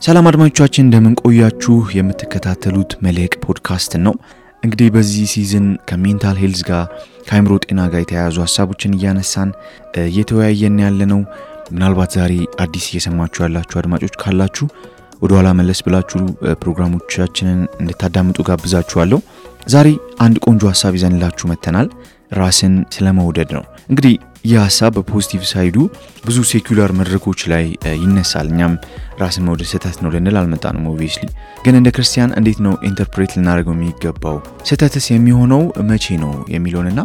ሰላም አድማጮቻችን እንደምን ቆያችሁ የምትከታተሉት መልሕቅ ፖድካስት ነው። እንግዲህ በዚህ ሲዝን ከሜንታል ሄልዝ ጋር ከአእምሮ ጤና ጋር የተያያዙ ሐሳቦችን እያነሳን እየተወያየን ያለነው። ምናልባት ዛሬ አዲስ እየሰማችሁ ያላችሁ አድማጮች ካላችሁ ወደ ኋላ መለስ ብላችሁ ፕሮግራሞቻችንን እንድታዳምጡ ጋብዛችኋለሁ። ዛሬ አንድ ቆንጆ ሐሳብ ይዘንላችሁ መተናል። ራስን ስለመውደድ ነው። እንግዲህ ይህ ሐሳብ በፖዚቲቭ ሳይዱ ብዙ ሴኩላር መድረኮች ላይ ይነሳል። እኛም ራስን መውደድ ስህተት ነው ልንል አልመጣንም ኦብቪየስሊ። ግን እንደ ክርስቲያን እንዴት ነው ኢንተርፕሬት ልናደርገው የሚገባው? ስህተትስ የሚሆነው መቼ ነው የሚለውንና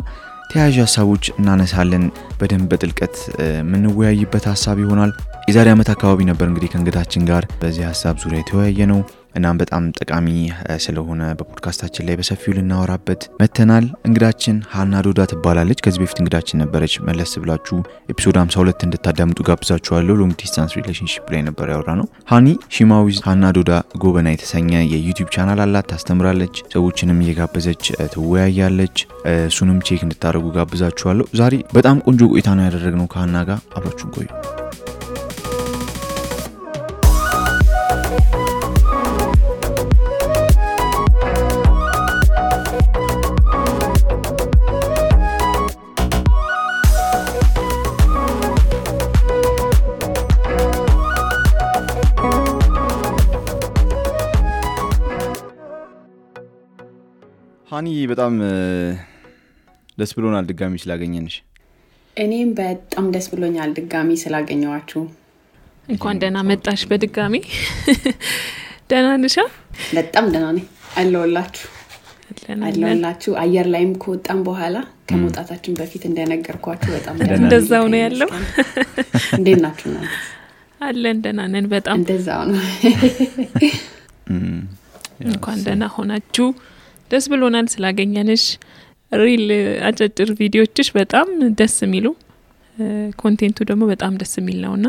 ተያያዥ ሐሳቦች እናነሳለን። በደንብ በጥልቀት የምንወያይበት ሐሳብ ይሆናል። የዛሬ ዓመት አካባቢ ነበር እንግዲህ ከእንግዳችን ጋር በዚህ ሐሳብ ዙሪያ የተወያየ ነው። እናም በጣም ጠቃሚ ስለሆነ በፖድካስታችን ላይ በሰፊው ልናወራበት መተናል። እንግዳችን ሃና ዶዳ ትባላለች። ከዚህ በፊት እንግዳችን ነበረች። መለስ ብላችሁ ኤፒሶድ 52 እንድታዳምጡ ጋብዛችኋለሁ። ሎንግ ዲስታንስ ሪሌሽንሺፕ ላይ ነበር ያወራነው። ሃኒ ሺማዊዝ ሃና ዶዳ ጎበና የተሰኘ የዩቲዩብ ቻናል አላት። ታስተምራለች፣ ሰዎችንም እየጋበዘች ትወያያለች። እሱንም ቼክ እንድታደርጉ ጋብዛችኋለሁ። ዛሬ በጣም ቆንጆ ቆይታ ነው ያደረግነው ከሃና ጋር። አብራችሁን ቆዩ። ሃኒ በጣም ደስ ብሎናል ድጋሚ ስላገኘንሽ። እኔም በጣም ደስ ብሎኛል ድጋሚ ስላገኘዋችሁ። እንኳን ደህና መጣሽ በድጋሚ። ደህና ነሽ? በጣም ደህና ነኝ። አለሁላችሁ። አየር ላይም ከወጣን በኋላ ከመውጣታችን በፊት እንደነገርኳችሁ በጣም እንደዛው ነው ያለው። እንዴት ናችሁ? አለን ደህና ነን በጣም እንደዛው ነው። እንኳን ደህና ሆናችሁ። ደስ ብሎናል ስላገኘንሽ። ሪል አጫጭር ቪዲዮዎችሽ በጣም ደስ የሚሉ ኮንቴንቱ ደግሞ በጣም ደስ የሚል ነውና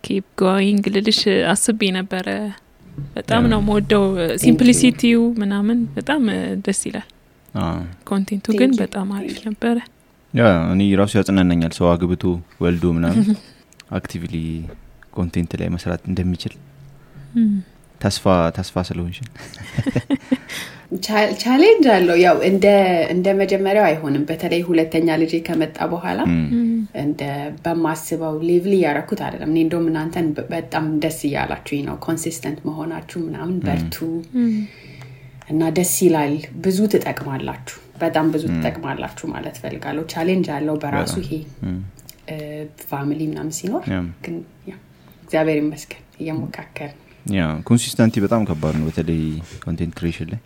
ኪፕ ጎይንግ ልልሽ አስቤ ነበር። በጣም ነው የምወደው ሲምፕሊሲቲው ምናምን በጣም ደስ ይላል። ኮንቴንቱ ግን በጣም አሪፍ ነበር። እኔ ራሱ ያጽናናኛል ሰው አግብቶ ወልዶ ምናምን አክቲቭሊ ኮንቴንት ላይ መስራት እንደሚችል ተስፋ ስለሆንሽ ቻሌንጅ አለው። ያው እንደ መጀመሪያው አይሆንም። በተለይ ሁለተኛ ልጅ ከመጣ በኋላ እንደ በማስበው ሌቭል ያረኩት አይደለም። እኔ እንደውም እናንተን በጣም ደስ ይያላችሁ ነው ኮንሲስተንት መሆናችሁ ምናምን በርቱ እና ደስ ይላል። ብዙ ትጠቅማላችሁ፣ በጣም ብዙ ትጠቅማላችሁ ማለት ፈልጋለሁ። ቻሌንጅ አለው በራሱ ይሄ ፋሚሊ ምናምን ሲኖር ግን ያ እግዚአብሔር ይመስገን እየሞካከርን ኮንሲስተንሲ በጣም ከባድ ነው። በተለይ ኮንቴንት ክሬሽን ላይ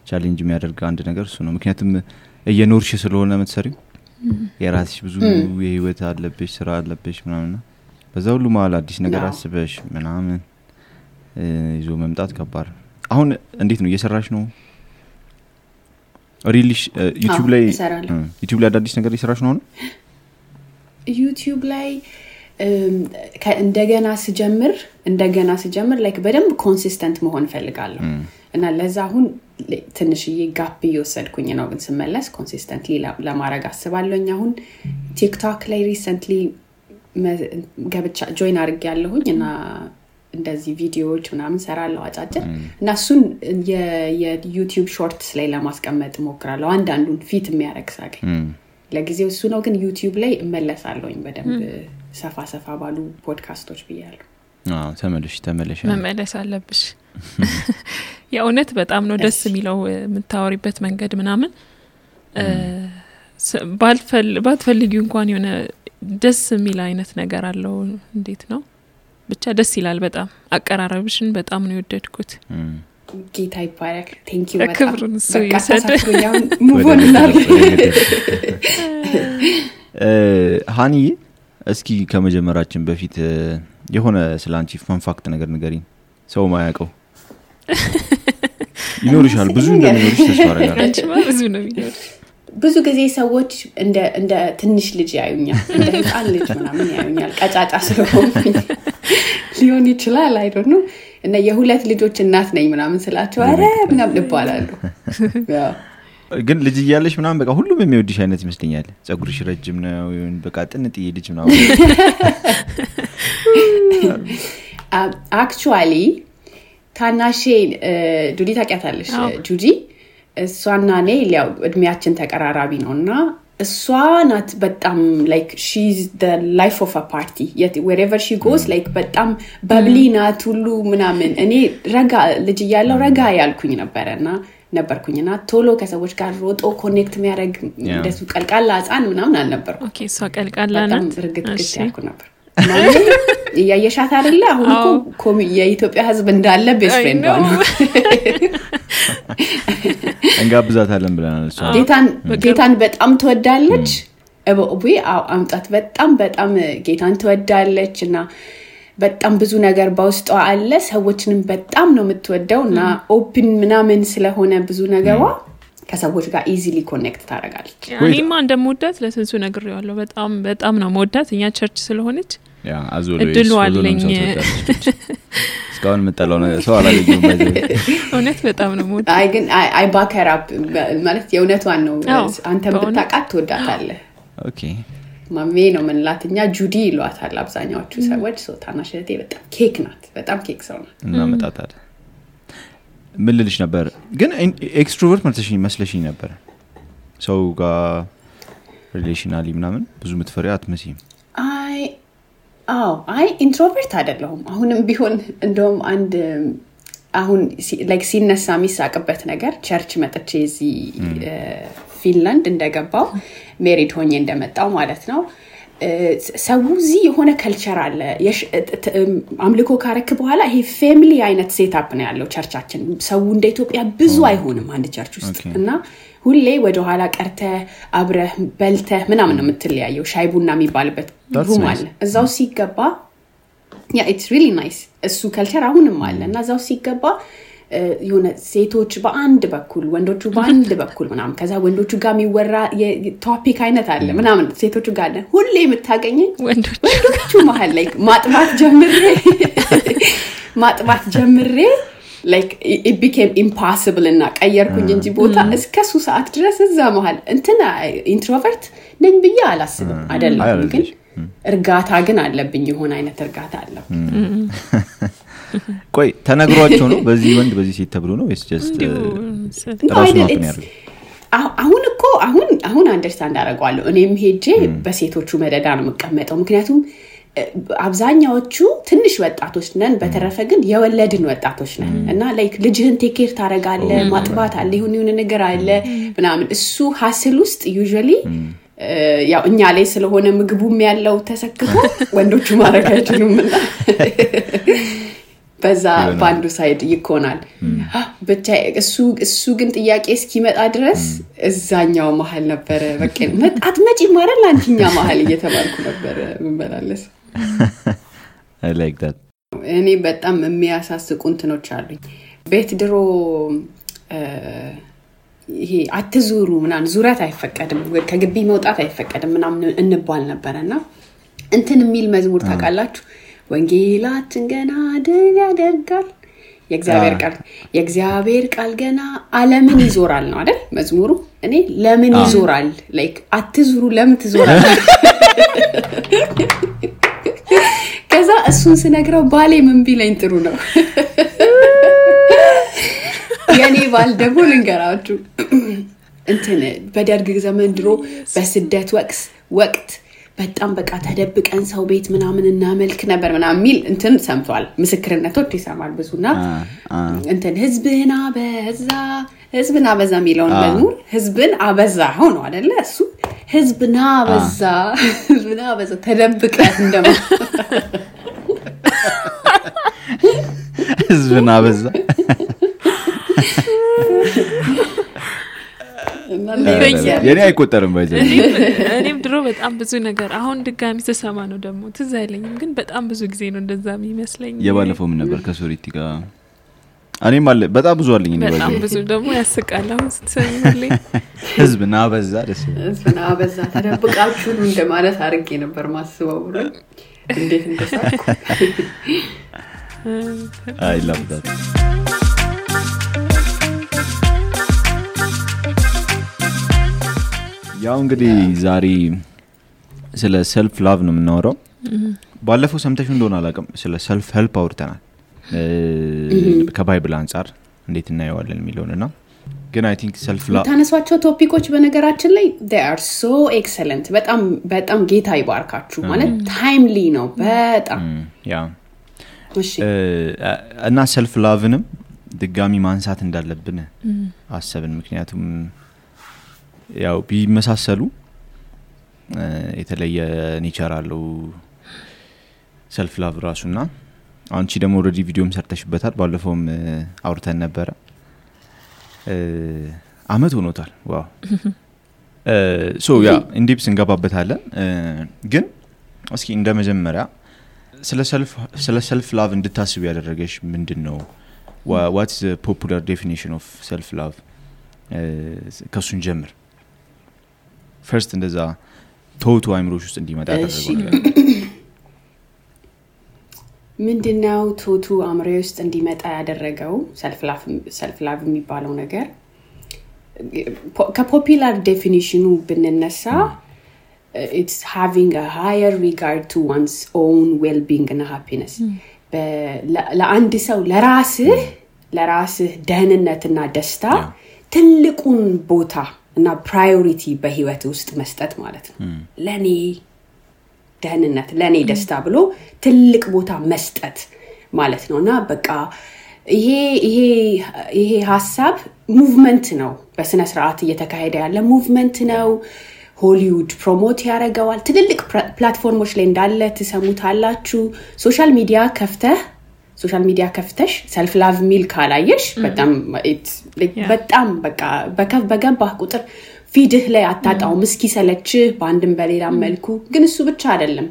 ቻሌንጅ የሚያደርግ አንድ ነገር እሱ ነው። ምክንያቱም እየኖርሽ ስለሆነ የምትሰሪው የራስሽ ብዙ የህይወት አለብሽ፣ ስራ አለብሽ ምናምን። በዛ ሁሉ መሀል አዲስ ነገር አስበሽ ምናምን ይዞ መምጣት ከባድ። አሁን እንዴት ነው እየሰራሽ ነው? ሪሊሽ ዩቲዩብ ላይ አዳዲስ ነገር እየሰራሽ ነው? ዩቲዩብ ላይ እንደገና ስጀምር ላይክ በደንብ ኮንሲስተንት መሆን ፈልጋለሁ እና ለዛ አሁን ትንሽዬ ጋፕ እየወሰድኩኝ ነው። ግን ስመለስ ኮንሲስተንትሊ ለማድረግ አስባለሁኝ። አሁን ቲክቶክ ላይ ሪሰንትሊ ገብቻ ጆይን አድርጌያለሁኝ እና እንደዚህ ቪዲዮዎች ምናምን ሰራለሁ አጫጭር እና እሱን የዩቲዩብ ሾርትስ ላይ ለማስቀመጥ ሞክራለሁ። አንዳንዱን ፊት የሚያደርግ ሳገኝ ለጊዜው እሱ ነው። ግን ዩቲዩብ ላይ እመለሳለሁኝ በደንብ ሰፋ ባሉ ፖድካስቶች ብያለሁ። ተመለሽ መመለስ አለብሽ። የእውነት በጣም ነው ደስ የሚለው የምታወሪበት መንገድ ምናምን ባትፈልጊው እንኳን የሆነ ደስ የሚል አይነት ነገር አለው። እንዴት ነው ብቻ ደስ ይላል በጣም። አቀራረብሽን በጣም ነው የወደድኩት። ጌታ ይባረክ። ቴንክ ዩ በጣም በቃ ሙቮንናል። ሃኒ እስኪ ከመጀመራችን በፊት የሆነ ስላንቺ ፈን ፋክት ነገር ንገሪኝ። ሰው ማያውቀው ይኖርሻል። ብዙ እንደሚኖርሽ ተስፋ አደርጋለሁ። አንቺ ብዙ ነው የሚኖርሽ። ብዙ ጊዜ ሰዎች እንደ ትንሽ ልጅ ያዩኛል፣ እንደ ህፃን ልጅ ምናምን ያዩኛል። ቀጫጫ ስለሆንኩኝ ሊሆን ይችላል አይ ዶንት ኖ። እና የሁለት ልጆች እናት ነኝ ምናምን ስላቸው አረ ምናምን ይባላሉ። ግን ልጅ እያለሽ ምናምን በቃ ሁሉም የሚወድሽ አይነት ይመስለኛል። ጸጉርሽ ረጅም ነው ይሁን በቃ ጥንጥዬ ልጅ ምናምን አክቹዋሊ ታናሼ ጁዲ ታውቂያታለሽ? ጁዲ እሷና እኔ ያው እድሜያችን ተቀራራቢ ነውና እሷ ናት በጣም like she's the life of a party yet wherever she goes like በጣም በብሊ ናት ሁሉ ምናምን እኔ ረጋ ልጅ እያለሁ ረጋ ያልኩኝ ነበርኩኝና ቶሎ ከሰዎች ጋር ሮጦ ኮኔክት የሚያደርግ እንደሱ ቀልቃላ ህፃን ምናምን አልነበርኩም። ኦኬ እሷ ቀልቃላ ናት እርግጥ ያልኩ ነበር ያየሻት አይደለ? አሁን እኮ የኢትዮጵያ ህዝብ እንዳለ ቤስት ፍሬንድ ነው። እንጋብዛታለን ብለናል። እሷ ጌታን በጣም ትወዳለች። ወይ አምጣት በጣም ጌታን ትወዳለችና በጣም ብዙ ነገር በውስጧ አለ። ሰዎችንም በጣም ነው የምትወደውና ኦፕን ምናምን ስለሆነ ብዙ ነገሯ ከሰዎች ጋር ኢዚሊ ኮኔክት ታደርጋለች። እኔማ እንደምወዳት ለስንሱ ነግሬዋለሁ። በጣም ነው የምወዳት እኛ ቸርች ስለሆነች ያ እድሉ አለኝ። እስካሁን መጣለው ሰው አላገኘም ባይዘ እውነት በጣም ነው የምወዳት። አይ ግን አይ ባከር አፕ ማለት የእውነቷን ነው። አንተም ብታውቃት ትወዳታለህ። ኦኬ ማሜ ነው ምንላትኛ ጁዲ ይሏታል አብዛኛዎቹ ሰዎች። ታናሽነቴ በጣም ኬክ ናት። በጣም ኬክ ሰው ናት። እና መጣጣት ምን ልልሽ ነበር ግን ኤክስትሮቨርት መስለሽኝ ነበር። ሰው ጋር ሪሌሽናሊ ምናምን ብዙ ምትፈሪ አትመስይም። አይ ኢንትሮቨርት አይደለሁም። አሁንም ቢሆን እንደውም አንድ አሁን ላይክ ሲነሳ የሚሳቅበት ነገር ቸርች መጥቼ እዚህ ፊንላንድ እንደገባው ሜሪድ ሆኜ እንደመጣው ማለት ነው። ሰው እዚህ የሆነ ካልቸር አለ። አምልኮ ካረክ በኋላ ይሄ ፋሚሊ አይነት ሴትአፕ ነው ያለው ቸርቻችን። ሰው እንደ ኢትዮጵያ ብዙ አይሆንም አንድ ቸርች ውስጥ እና ሁሌ ወደ ኋላ ቀርተ አብረህ በልተ ምናምን ነው የምትለያየው። ሻይ ቡና የሚባልበት ሩም አለ እዛው ሲገባ ያ ኢትስ ሪሊ ናይስ እሱ ካልቸር አሁንም አለና እዛው ሲገባ የሆነ ሴቶች በአንድ በኩል ወንዶቹ በአንድ በኩል ምናምን ከዛ ወንዶቹ ጋር የሚወራ የቶፒክ አይነት አለ ምናምን ሴቶቹ ጋር አለ። ሁሌ የምታገኘኝ ወንዶቹ መሃል ላይ ማጥባት ጀምሬ like it became impossible እና ቀየርኩኝ እንጂ ቦታ እስከ ሱ ሰዓት ድረስ እዛ መሃል እንትና ኢንትሮቨርት ነኝ ብዬ አላስብም። አይደለም ግን እርጋታ ግን አለብኝ የሆነ አይነት እርጋታ አለ። ቆይ ተነግሯቸው ነው በዚህ ወንድ በዚህ ሴት ተብሎ ነው ወይስ just ራሱ ነው ያለው? አሁን አንደርስታንድ አደርጋለሁ። እኔም ሄጄ በሴቶቹ መደዳ ነው የምቀመጠው ምክንያቱም አብዛኛዎቹ ትንሽ ወጣቶች ነን። በተረፈ ግን የወለድን ወጣቶች ነን እና ላይክ ልጅህን ቴክ ኬር ታረጋለህ ማጥባት አለ ይሁን ነገር አለ ምናምን እሱ ሀስል ውስጥ ዩዥዋሊ ያው እኛ ላይ ስለሆነ ምግቡም ያለው ተሰክቶ ወንዶቹ ማረጋችሁም እና በዛ ባንዱ ሳይድ ይኮናል። ብቻ እሱ ግን ጥያቄ እስኪመጣ ድረስ እዛኛው መሃል ነበር በቃ አትመጪ ማረል አንቺኛ መሃል እየተባልኩ ነበር ምንበላለስ። I like that. እኔ በጣም የሚያሳስቁ እንትኖች አሉኝ ቤት ድሮ ይሄ አትዙሩ ምናምን ዙረት አይፈቀድም ከግቢ መውጣት አይፈቀድም ምናምን እንባል ነበርና እንትን የሚል መዝሙር ታውቃላችሁ? ወንጌላችን ገና ድል ያደርጋል የእግዚአብሔር ቃል ገና ዓለምን ይዞራል ነው አይደል መዝሙሩ? እኔ ለምን ይዞራል ላይክ አትዙሩ ለምን ትዞራል? ከዛ እሱን ስነግረው ባሌ ምን ቢለኝ ጥሩ ነው የኔ ባል ደግሞ ልንገራችሁ እንትን በደርግ ዘመን ድሮ በስደት ወቅት በጣም በቃ ተደብቀን ሰው ቤት ምናምን እናመልክ ነበር ምናምን ሚል እንትን ሰምቷል። ምስክርነቶች ይሰማል ብዙና እንትን ህዝብና በዛ ሚለውን መዝሙር ህዝብን አበዛ ሆኖ አይደለ እሱ ህዝብና በዛ ተደብቀን እንደማ ህዝብና በዛ የኔ አይቆጠርም ባይዘ እኔም ድሮ በጣም ብዙ ነገር አሁን ድጋሚ ተሰማ ነው ደግሞ ትዝ አይለኝም ግን በጣም ብዙ ጊዜ ነው እንደዛ የሚመስለኝ። የባለፈው ምን ነበር ከሶሪቲ ጋር እኔም አለ በጣም ብዙ አለኝ ነው በጣም ብዙ ደግሞ ያስቃል። አሁን ስትሰሚልኝ ህዝብና በዛ ደስ ህዝብና በዛ ተደብቃችሁ እንደማለት አድርጌ ነበር ማስበው ብሎ እንዴት እንደሳኩ I love that. ያው እንግዲህ ዛሬ ስለ ሰልፍ ላቭ ነው የምናወራው። ባለፈው ሰምተሽ እንደሆነ አላውቅም ስለ ሰልፍ ሄልፕ አውርተናል። ከባይብል አንፃር እንዴት እናየዋለን የሚለውንና ግን I think self love ታነሷቸው ቶፒኮች በነገራችን ላይ they are so excellent በጣም ጌታ ይባርካችሁ ማለት ታይምሊ ነው በጣም ያ እሺ እና self loveንም ድጋሚ ማንሳት እንዳለብን አሰብን ምክንያቱም ያው ቢመሳሰሉ የተለየ ኔቸር አለው self love ራሱና አንቺ ደግሞ ኦሬዲ ቪዲዮም ሰርተሽበታል ባለፈውም አውርተን ነበር አመት ሆኖታል ዋው ሶ ያ ኢንዲፕስ እንገባበታለን ግን እስኪ እንደመጀመሪያ ስለ self love እንድታስብ ያደረገሽ ምንድነው what's the popular definition of self love ከሱን ጀምር first እንደዛ ቶቱ አይምሮሽ ውስጥ እንዲመጣ ያደረገው ምንድነው ቶቱ አምሮሽ ውስጥ እንዲመጣ ያደረገው self love የሚባለው ነገር ከፖፑላር ዴፊኒሽኑ ብንነሳ it's having a higher regard to one's own well-being and happiness ለአንድ ሰው ለራስህ ደህንነትና ደስታ ትልቁን ቦታ እና ፕራዮሪቲ በህይወት ውስጥ መስጠት ማለት ነው ለኔ ደህንነት ለኔ ደስታ ብሎ ትልቅ ቦታ መስጠት ማለት ነውና በቃ ይሄ ሐሳብ ሙቭመንት ነው በስነ ስርዓት እየተካሄደ ያለ ሙቭመንት ነው ሆሊውድ ፕሮሞት ያደርጋል ትልልቅ ፕላትፎርሞች ላይ እንዳለ ተሰሙታላችሁ ሶሻል ሚዲያ ከፍተሽ self love ሚል ካላየሽ በጣም በቃ በገባህ ቁጥር ፊድህ ላይ አጣጣው ምስኪ ሰለች ባንድም በሌላ መልኩ ግን እሱ ብቻ አይደለም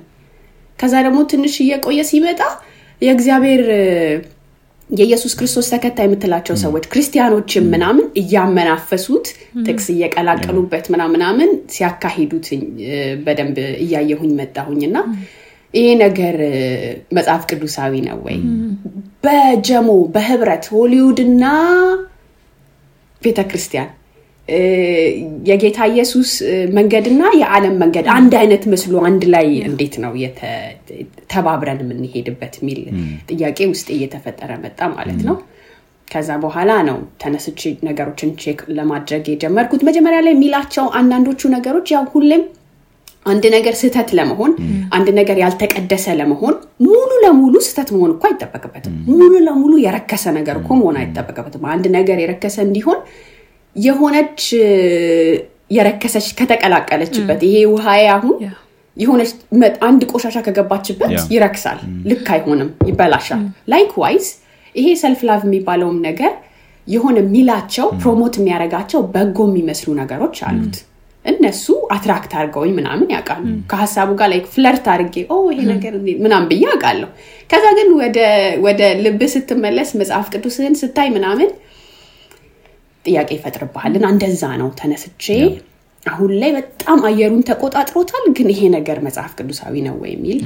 ከዛ ደግሞ ትንሽ እየቆየ ሲመጣ የእግዚአብሔር የኢየሱስ ክርስቶስ ተከታይ የምትላቸው ሰዎች ክርስቲያኖችም ምናምን እያመናፈሱት ጥቅስ እየቀላቀሉበት ምናምን ሲያካሂዱት በደንብ እያየሁኝ መጣሁኝና ይሄ ነገር መጽሐፍ ቅዱሳዊ ነው ወይ በጀሞ በህብረት ሆሊውድና ቤተክርስቲያን የጌታ ኢየሱስ መንገድና የዓለም መንገድ አንድ አይነት መስሎ አንድ ላይ እንዴት ነው ተባብረን የምንሄድበት ሚል ጥያቄ ውስጥ እየተፈጠረ መጣ ማለት ነው ከዛ በኋላ ነው ተነስቼ ነገሮችን ቼክ ለማድረግ የጀመርኩት መጀመሪያ ላይ ሚላቸው አንዳንዶቹ ነገሮች ያው ሁሌም አንድ ነገር ስህተት ለመሆን አንድ ነገር ያልተቀደሰ ለመሆን ሙሉ ለሙሉ ስህተት መሆን እኮ አይተበከበትም ሙሉ ለሙሉ የረከሰ ነገር እኮ መሆን አይተበከበትም አንድ ነገር የረከሰ እንዲሆን የሆነች የረከሰች ከተቀላቀለችበት ይሄ ውሃዬ አሁን የሆነች አንድ ቆሻሻ ከገባችበት ይረክሳል ልክ አይሆንም ይበላሻል ላይክዋይዝ ይሄ self love የሚባለው ነገር የሆነ ሚላቸው ፕሮሞት የሚያረጋቸው በጎ የሚመስሉ ነገሮች አሉት እነሱ አትራክት አድርገውኝ ምናምን ያውቃሉ ከሐሳቡ ጋር ላይክ ፍለርት አድርጌ ይሄ ነገር ምናምን በያውቃለሁ ከዛ ግን ወደ ልብ ስትመለስ መጽሐፍ ቅዱስን ስታይ ምናምን ጥያቄ ይፈጥርብሃልና እንደዛ ነው ተነስቼ አሁን ላይ በጣም አየሩን ተቆጣጥሮታል ግን ይሄ ነገር መጽሐፍ ቅዱሳዊ ነው ወይ ሚል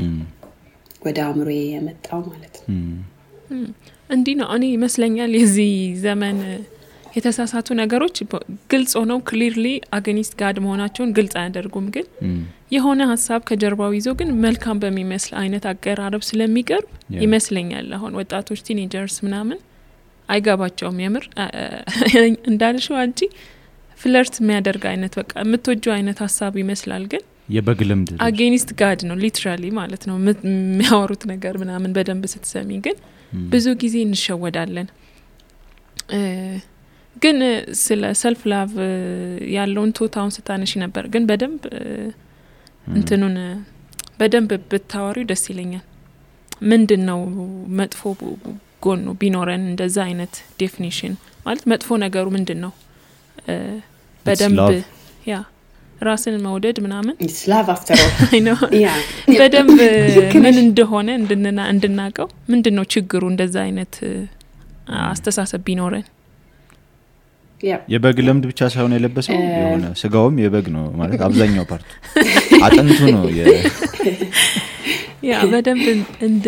ወደ አምሮዬ የመጣው ማለት ነው እንዲህ ነው እኔ ይመስለኛል የዚህ ዘመን የተሳሳቱ ነገሮች ግልጽ ሆነው ክሊርሊ አገኒስት ጋድ መሆናቸውን ግልጽ አያደርጉም ግን የሆነ ሐሳብ ከጀርባው ይዞ ግን መልካም በሚመስል አይነት አቀራረብ ስለሚቀርብ ይመስለኛል አሁን ወጣቶች ቲኔጀርስ ምናምን አይጋባቸውም የምር እንዳልሽው አንቺ ፍለርት የሚያደርግ አይነት በቃ የምትወጂው አይነት ሐሳብ ይመስላል ግን የበግልምድ አጌኒስት ጋድ ነው ሊትራሊ ማለት ነው የሚያወሩት ነገር ምናምን በደንብ ስትሰሚ ግን ብዙ ጊዜ እንሸወዳለን ግን ስለ self love ያለውን ቶታውን ስታነሺ ነበር ግን በደንብ እንትኑን በደንብ ብታወሪው ደስ ይለኛል ምንድነው መጥፎ ጎኑ ቢኖረን እንደዛ አይነት ዴፊኒሽን ማለት መጥፎ ነገሩ ምንድነው በደንብ ያ ራስን መውደድ ምናምን it's love after all I know በደንብ ምን እንደሆነ እንድናቀው ምንድነው ችግሩ እንደዛ አይነት አስተሳሰብ ቢኖረን የበግ ለምድ ብቻ ሳይሆን የለበሰው የሆነ ስጋውም የበግ ነው ማለት አብዛኛው ፓርት አጥንቱ ነው ያ በደንብ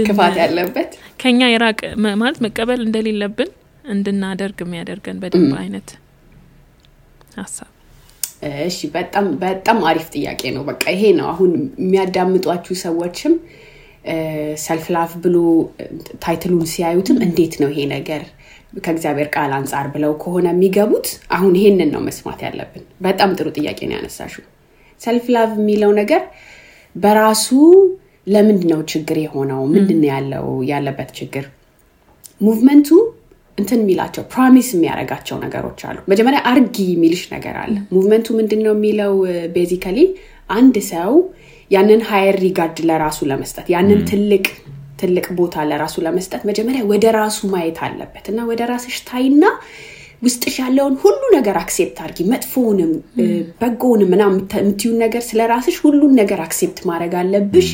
ክፋት ያለበት ከኛ ይራቅ ማለት መቀበል እንደሌለብን እንድናደርግ የሚያደርገን በደንብ አይነት ሐሳብ እሺ በጣም አሪፍ ጥያቄ ነው በቃ ይሄ ነው አሁን የሚያዳምጧችሁ ሰዎችም ሰልፍ ላቭ ብሎ ታይትሉን ሲያዩትም እንዴት ነው ይሄ ነገር ከእግዚአብሔር ቃል አንፃር ብለው ከሆነ የሚገቡት አሁን ይሄንን ነው መስማት ያለብን። በጣም ጥሩ ጥያቄ ነው ያነሳሽው። ሰልፍ ላቭ የሚለው ነገር በራሱ ለምንድነው ችግር የሆነው? ምንድነው ያለበት ችግር? ሙቭመንቱ እንትን የሚላቸው ፕሮሚስ የሚያረጋቸው ነገሮች አሉ። መጀመሪያ አርጊ የሚልሽ ነገር አለ። ሙቭመንቱ ምንድነው የሚለው ቤዚካሊ አንድ ሰው ያንን ሃየር ሪጋርድ ለራሱ ለመስጠት ያንን ትልቅ ቦታ ለራሱ ለመስጠት መጀመሪያ ወደ ራሱ ማየት አለበት እና ወደ ራስሽ ታይና ውስጥሽ ያለውን ሁሉ ነገር አክሴፕት አድርጊ። መጥፎውንም በጎውንም ምናምን የምትዩን ነገር ስለራስሽ ሁሉን ነገር አክሴፕት ማድረግ አለብሽ።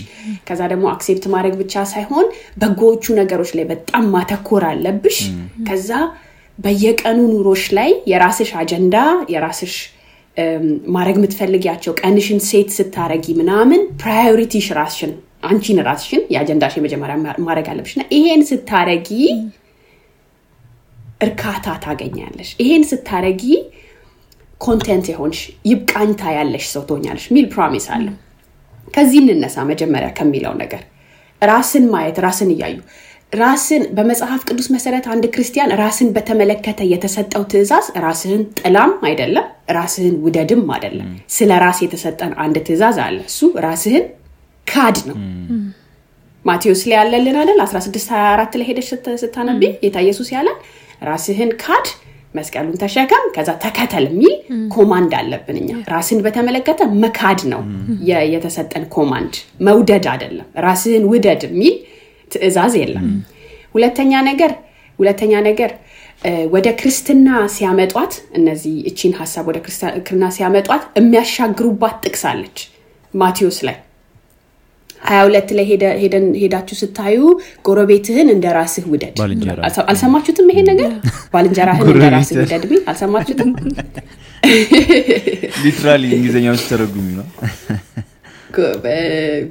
ከዛ ደግሞ አክሴፕት ማድረግ ብቻ ሳይሆን በጎዎቹ ነገሮች ላይ በጣም ማተኮር አለብሽ። ከዛ በየቀኑ ኑሮሽ ላይ የራስሽ አጀንዳ የራስሽ ማድረግ የምትፈልጊያቸው ቀንሽን ሴት ስታረጊ ምናምን ፕራዮሪቲሽ ራስሽን አንቺን ራስሽን የአጀንዳሽ መጀመሪያ ማድረግ አለብሽና ይሄን ስታረጊ እርካታ ታገኛለሽ። ይሄን ስታረጊ ኮንቴንት ይሆንሽ ይብቃኝታ ያለሽ ሰው ትሆኛለሽ ሚል ፕሮሚስ አለ። ከዚህ እንነሳ መጀመሪያ ከሚለው ነገር ራስን ማየት ራስን ይያዩ ራስን በመጽሐፍ ቅዱስ መሰረት አንድ ክርስቲያን ራስን በተመለከተ የተሰጠው ትእዛዝ ራስን ጥላም አይደለም ራስን ውደድም አይደለም። ስለ ራስ የተሰጠን አንድ ትእዛዝ አለ። እሱ ራስን ካድ ነው። ማቴዎስ ላይ ያለልን አይደል 16:24 ላይ ሄደሽ ስታነቢ ጌታ ኢየሱስ ያለ ራስህን ካድ መስቀሉን ተሸከም ከዛ ተከተል የሚል ኮማንድ አለብን እኛ። ራስን በተመለከተ መካድ ነው የተሰጠን ኮማንድ፣ መውደድ አይደለም። ራስህን ውደድ የሚል ትእዛዝ የለም። ሁለተኛ ነገር ወደ ክርስትና ሲያመጧት እነዚህ እቺን ሐሳብ ወደ ክርስትና ሲያመጧት የሚያሻግሩባት ጥቅስ አለች ማቴዎስ ላይ 22 ላይ ሄዳችሁ ስታዩ ጎረቤትህን እንደራስህ ውደድ። አልሰማችሁትም? ይሄ ነገር ባልንጀራህን እንደራስህ ውደድ ቢል አልሰማችሁትም? ሊትራሊ እንግሊዘኛው ተረጉም ነው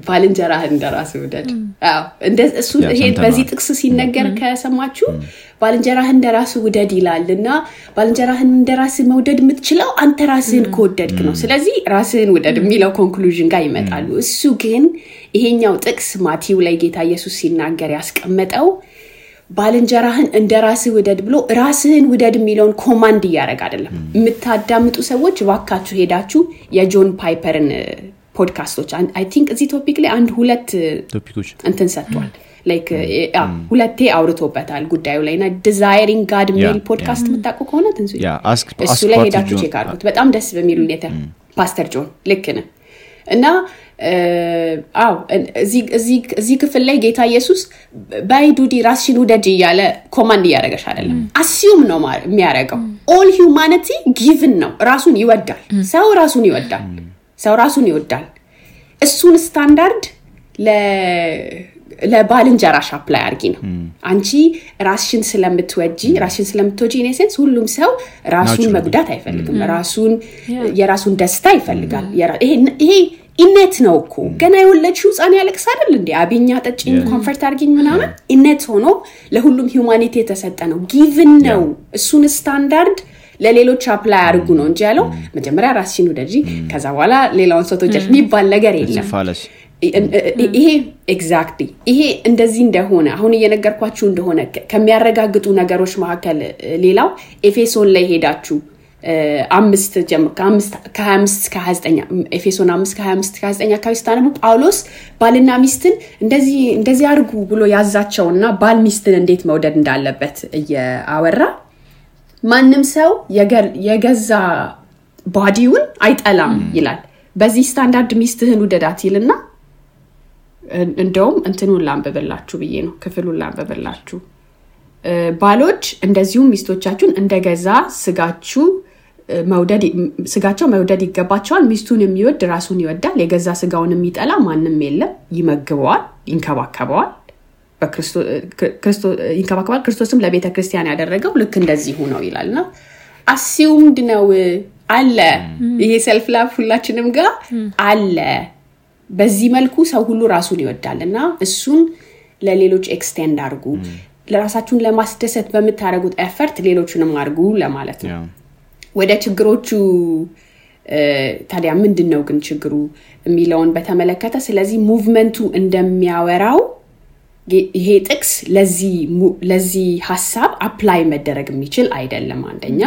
ባልንጀራህን እንደራስህ ውደድ። አዎ እሱ ይሄ በዚህ ጥቅስ ሲነገር ከሰማችሁ ባልንጀራህን እንደራስህ ውደድ ይላልና ባልንጀራህን እንደራስህ መውደድ የምትችለው አንተ ራስህን ከወደድክ ነው። ስለዚህ ራስህን ውደድ የሚለው ኮንክሉዥን ጋር ይመጣሉ። እሱ ግን ይሄኛው ጥቅስ ማቴው ላይ ጌታ ኢየሱስ ሲናገር ያስቀመጠው ባልንጀራህን እንደራስህ ውደድ ብሎ ራስህን ውደድ የሚለውን ኮማንድ ያደርግ አይደለም። የምታዳምጡ ሰዎች ዋካችሁ ሄዳችሁ የጆን ፓይፐርን ፖድካስቶች አይ ቲንክ እዚህ ቶፒክ ላይ አንድ ሁለት ቶፒኮች እንትን ሰጥቷል። ላይክ ሁለቴ አውርቶበታል ጉዳዩ ላይና ዲዛይሪንግ ጋድ ሜል ፖድካስት መጣቁ ከሆነ ትንሱ እሱ ላይ ሄዳችሁ ቼክ አድርጉት። በጣም ደስ በሚል ሁኔታ ፓስተር ጆን ልክ ነው እና እዚህ ክፍል ላይ ጌታ ኢየሱስ ባይዱዲ ራስሽን ውደድ እያለ ኮማንድ እያደረገሽ አይደለም። አሲዩም ነው የሚያደርገው። ኦል ሂውማኒቲ ጊቭን ነው። ራሱን ይወዳል። ሰው ራሱን ይወዳል። እሱን ስታንዳርድ ለባልንጀራሽ አፕላይ አርጊ ነው። አንቺ ራስሽን ስለምትወጂ ኢን ሴንስ ሁሉም ሰው ራሱን መጉዳት አይፈልግም። የራሱን ደስታ ይፈልጋል። ይሄ ኢነት ነው እኮ ገና የወለድሽው ህፃን ያለቅስ አይደል እንዴ? አብኛ ጠጪኝ ኮምፎርት አርጊኝ ምናምን ኢነት ሆኖ ለሁሉም ሂውማኒቲ የተሰጠ ነው። ጊቭን ነው። እሱን ስታንዳርድ ለሌሎች አፕላይ አድርጉ ነው እንጂ ያለው መጀመሪያ ራስሽን ውደጂ ከዛ በኋላ ሌላውን ሰው ተወጂ የሚባል ነገር የለም። ይሄ ኤግዛክትሊ ይሄ እንደዚህ እንደሆነ አሁን እየነገርኳችሁ እንደሆነ ከሚያረጋግጡ ነገሮች መካከል ሌላው ኤፌሶን ላይ ሄዳችሁ 5 ጀምሮ ከ25 እስከ 29 ኤፌሶን 5 ከ25 እስከ 29 አካባቢ ስታነቡ ጳውሎስ ባልና ሚስትን እንደዚህ አድርጉ ብሎ ያዛቸውና ባል ሚስትን እንዴት መውደድ እንዳለበት እያወራ ማንም ሰው የገዛ ባዲውን አይጠላም ይላል። በዚህ ስታንዳርድ ሚስትህን ውደዳት ይልና እንደውም እንትኑን ላንበበላችሁ ብዬ ነው ክፍሉን ላንበበላችሁ። ባሎች እንደዚሁም ሚስቶቻችሁን እንደገዛ ስጋቸው መውደድ ይገባቸዋል። ሚስቱን የሚወድ ራሱን ይወዳል። የገዛ ስጋውን የሚጠላ ማንም የለም። ይመግበዋል፣ ይንከባከበዋል። ክርስቶስም ለቤተ ክርስቲያን ያደረገው ልክ እንደዚህ ሆነው ይላልና አሲዩምድ ነው አለ። ይሄ ሰልፍ ላቭ ሁላችንም ጋር አለ። በዚህ መልኩ ሰው ሁሉ ራሱን ይወዳልና እሱን ለሌሎች ኤክስቴንድ አድርጉ። ለራሳችሁን ለማስደሰት በምታረጉት ኤፈርት ሌሎችንም አድርጉ ለማለት ነው። ወደ ችግሮቹ ታዲያ ምንድነው ግን ችግሩ የሚለውን በተመለከተ ስለዚህ ሙቭመንቱ እንደሚያወራው ይሄ ጥቅስ ለዚህ ሐሳብ አፕላይ መደረግ የሚችል አይደለም አንደኛ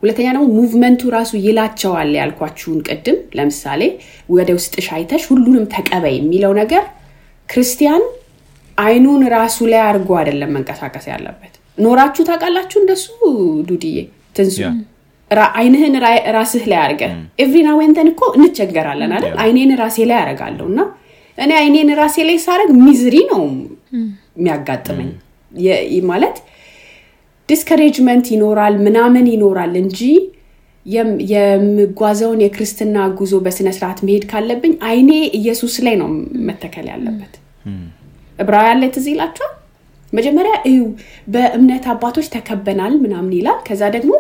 ሁለተኛ ነው ሙቭመንቱ ራሱ ይላቸዋል ያልኳችሁን ቀድም ለምሳሌ ወደ ውስጥሽ አይተሽ ሁሉንም ተቀበይ የሚለው ነገር ክርስቲያን አይኑን ራሱ ላይ አርጎ አይደለም መንቀሳቀስ ያለበት ኖራችሁ ታውቃላችሁ እንደሱ ዱዲዬ ትንሱ አይንህን ራስህ ላይ አርገ ኤቭሪ ናው ኤንድ ዘን እኮ እንቸገራለን አይደል አይኔን ራሴ ላይ አረጋለሁና እኔ አይኔን ራሴ ላይ ሳረግ ሚዝሪ ነው የሚያጋጥመኝ ማለት ዲስከሬጅመንት ይኖራል ምናምን ይኖራል እንጂ የምጓዘውን የክርስትና ጉዞ በስነ ስርዓት መሄድ ካለብኝ አይኔ ኢየሱስ ላይ ነው መተከል ያለበት ዕብራውያን ላይ ተዝይላችሁ መጀመሪያ በእምነት አባቶች ተከበናል ምናምን ይላል ከዛ ደግሞ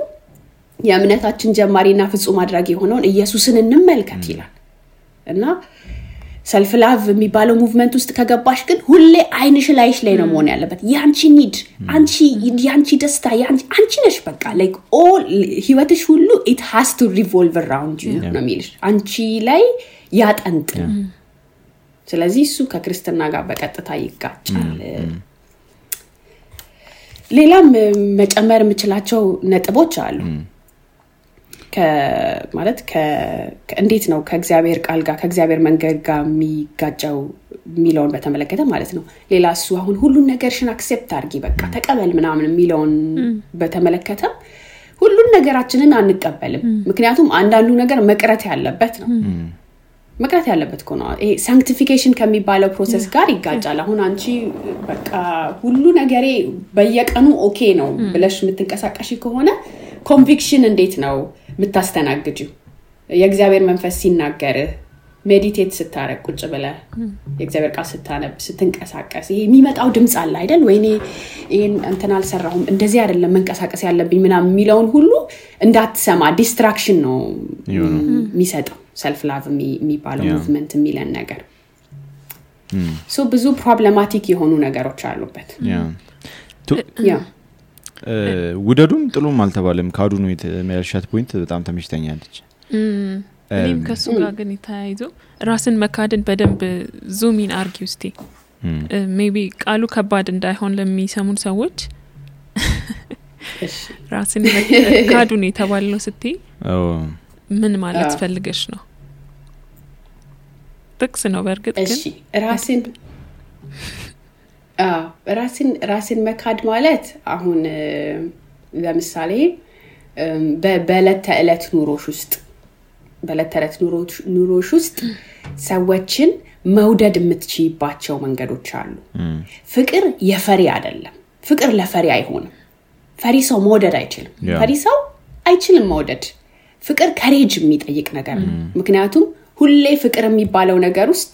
የእምነታችን ጀማሪና ፍጹም አድራጊ የሆነውን ኢየሱስን እንመልከት ይላል እና ሰልፍ ላቭ የሚባለው ሙቭመንት ውስጥ ከገባሽ ግን ሁሌ አይንሽ ላይሽ ላይ ነው መሆን ያለበት ያንቺ ኒድ ያንቺ ደስታ አንቺ ነሽ በቃ like all ህይወትሽ ሁሉ it has to revolve around you ነው የሚልሽ አንቺ ላይ ያጠንጥን ስለዚህ እሱ ከክርስትና ጋር በቀጥታ ይጋጫል ሌላም መጨመር የምችላቸው ነጥቦች አሉ ማለት እንዴት ነው ከእግዚአብሔር ቃል ጋር ከእግዚአብሔር መንገድ ጋር የሚጋጫው ሚለውን በተመለከተ ማለት ነው ሌላ እሱ አሁን ሁሉን ነገርሽን አክሴፕት አድርጊ በቃ ተቀበል ምናምን ሚለውን በተመለከተ ሁሉን ነገራችንን አንቀበልም ምክንያቱም አንዳንዱ ነገር መቅረት ያለበት ነው መቅረት ያለበት ነው ይሄ ሳንክቲፊኬሽን ከሚባለው ፕሮሰስ ጋር ይጋጫል አሁን አንቺ በቃ ሁሉ ነገሬ በየቀኑ ኦኬ ነው ብለሽ የምትንቀሳቀሺ ከሆነ ኮንቪክሽን እንዴት ነው የምታስተናግጂው የእግዚአብሔር መንፈስ ሲናገር ሜዲቴት ስታረግ ቁጭ ብለ የእግዚአብሔር ቃል ስታነብ ስትንቀሳቀስ ይሄ የሚመጣው ድምጽ አለ አይደል ወይኔ ይሄን እንትን አልሰራሁም እንደዚህ አይደለም መንቀሳቀስ ያለብኝ ምናምን የሚለውን ሁሉ እንዳትሰማ ዲስትራክሽን ነው የሚሰጠው ሰልፍ ላቭ የሚባለው ሙቭመንት የሚለን ነገር ሶ ብዙ ፕሮብሌማቲክ የሆኑ ነገሮች አሉበት ያ ውደዱም ጥሉም አልተባለም ካዱ ነው የተመያሻት ፖይንት በጣም ተመችተኛለች እኔም ከሱ ጋር ግን ይታያይዞ ራስን መካድን በደንብ ዙም ኢን አርጊው እስቲ ሜቢ ቃሉ ከባድ እንዳይሆን ለሚሰሙን ሰዎች ራስን ካዱን የተባለው ስትይ ምን ማለት ፈልገሽ ነው ጥቅስ ነው በርግጥ ግን እሺ ራስን መካድ ማለት አሁን ለምሳሌ በዕለት ተዕለት ኑሮሽ ውስጥ ሰዎችን መውደድ የምትችይባቸው መንገዶች አሉ ፍቅር የፈሪ አይደለም ፍቅር ለፈሪ አይሆንም ፈሪ ሰው መውደድ አይችልም ፈሪ ሰው አይችልም መውደድ ፍቅር ከሬጅ የሚጠይቅ ነገር ነው ምክንያቱም ሁሌ ፍቅር የሚባለው ነገር ውስጥ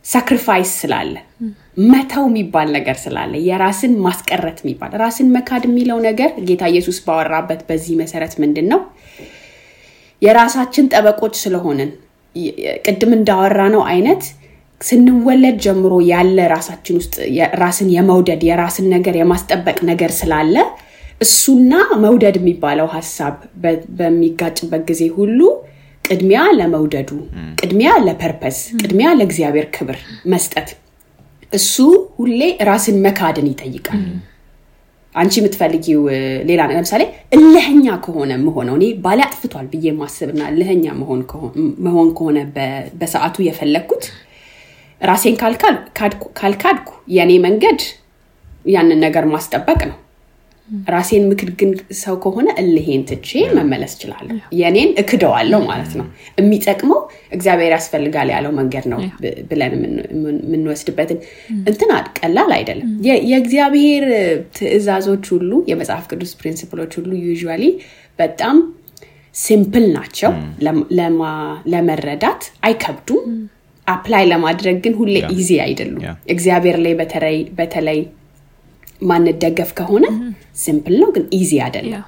ሳክሪፋይስ ስላለ መታው የሚባል ነገር ስላለ የራስን ማስቀረት የሚባል ራስን መካድ የሚለው ነገር ጌታ ኢየሱስ ባወራበት በዚህ መሰረት ምንድነው የራሳችን ጠበቆች ስለሆነን ቅድም እንዳወራ ነው አይነት ስንወለድ ጀምሮ ያለ ራሳችን ውስጥ ራስን የመውደድ የራስን ነገር የማስጠበቅ ነገር ስላለ እሱና መውደድ የሚባለው ሐሳብ በሚጋጭበት ጊዜ ሁሉ ቅድሚያ ለመውደዱ ቅድሚያ ለፐርፐስ ቅድሚያ ለእግዚአብሔር ክብር መስጠት እሱ ሁሌ ራስን መካድን ይጠይቃል አንቺ የምትፈልጊው ሌላ ነገር ለምሳሌ እልህኛ ከሆነ መሆነው እኔ ባለ አጥፍቷል ብዬ ማስብና እልህኛ መሆን ከሆነ በሰዓቱ የፈለኩት ራሴን ካልካድኩ የኔ መንገድ ያንን ነገር ማስጠበቅ ነው ራሴን ምክድግን ሰው ከሆነ እልሄን ትቼ መመለስ ይችላል የኔን እክደዋለሁ ማለት ነው የሚጠቅመው እግዚአብሔር ያስፈልጋል ያለው መንገድ ነው ብለን ምን ወስድበትን እንትና ቀላል አይደለም የእግዚአብሔር ትእዛዞች ሁሉ የመጽሐፍ ቅዱስ ፕሪንሲፕሎች ሁሉ ዩዥዋሊ በጣም ሲምፕል ናቸው ለመረዳት አይከብዱም አፕላይ ለማድረግ ግን ሁሌ ኢዚ አይደሉም እግዚአብሔር ላይ በተለይ ማንደገፍ ከሆነ ሲምፕል ነው ግን ኢዚ አይደለም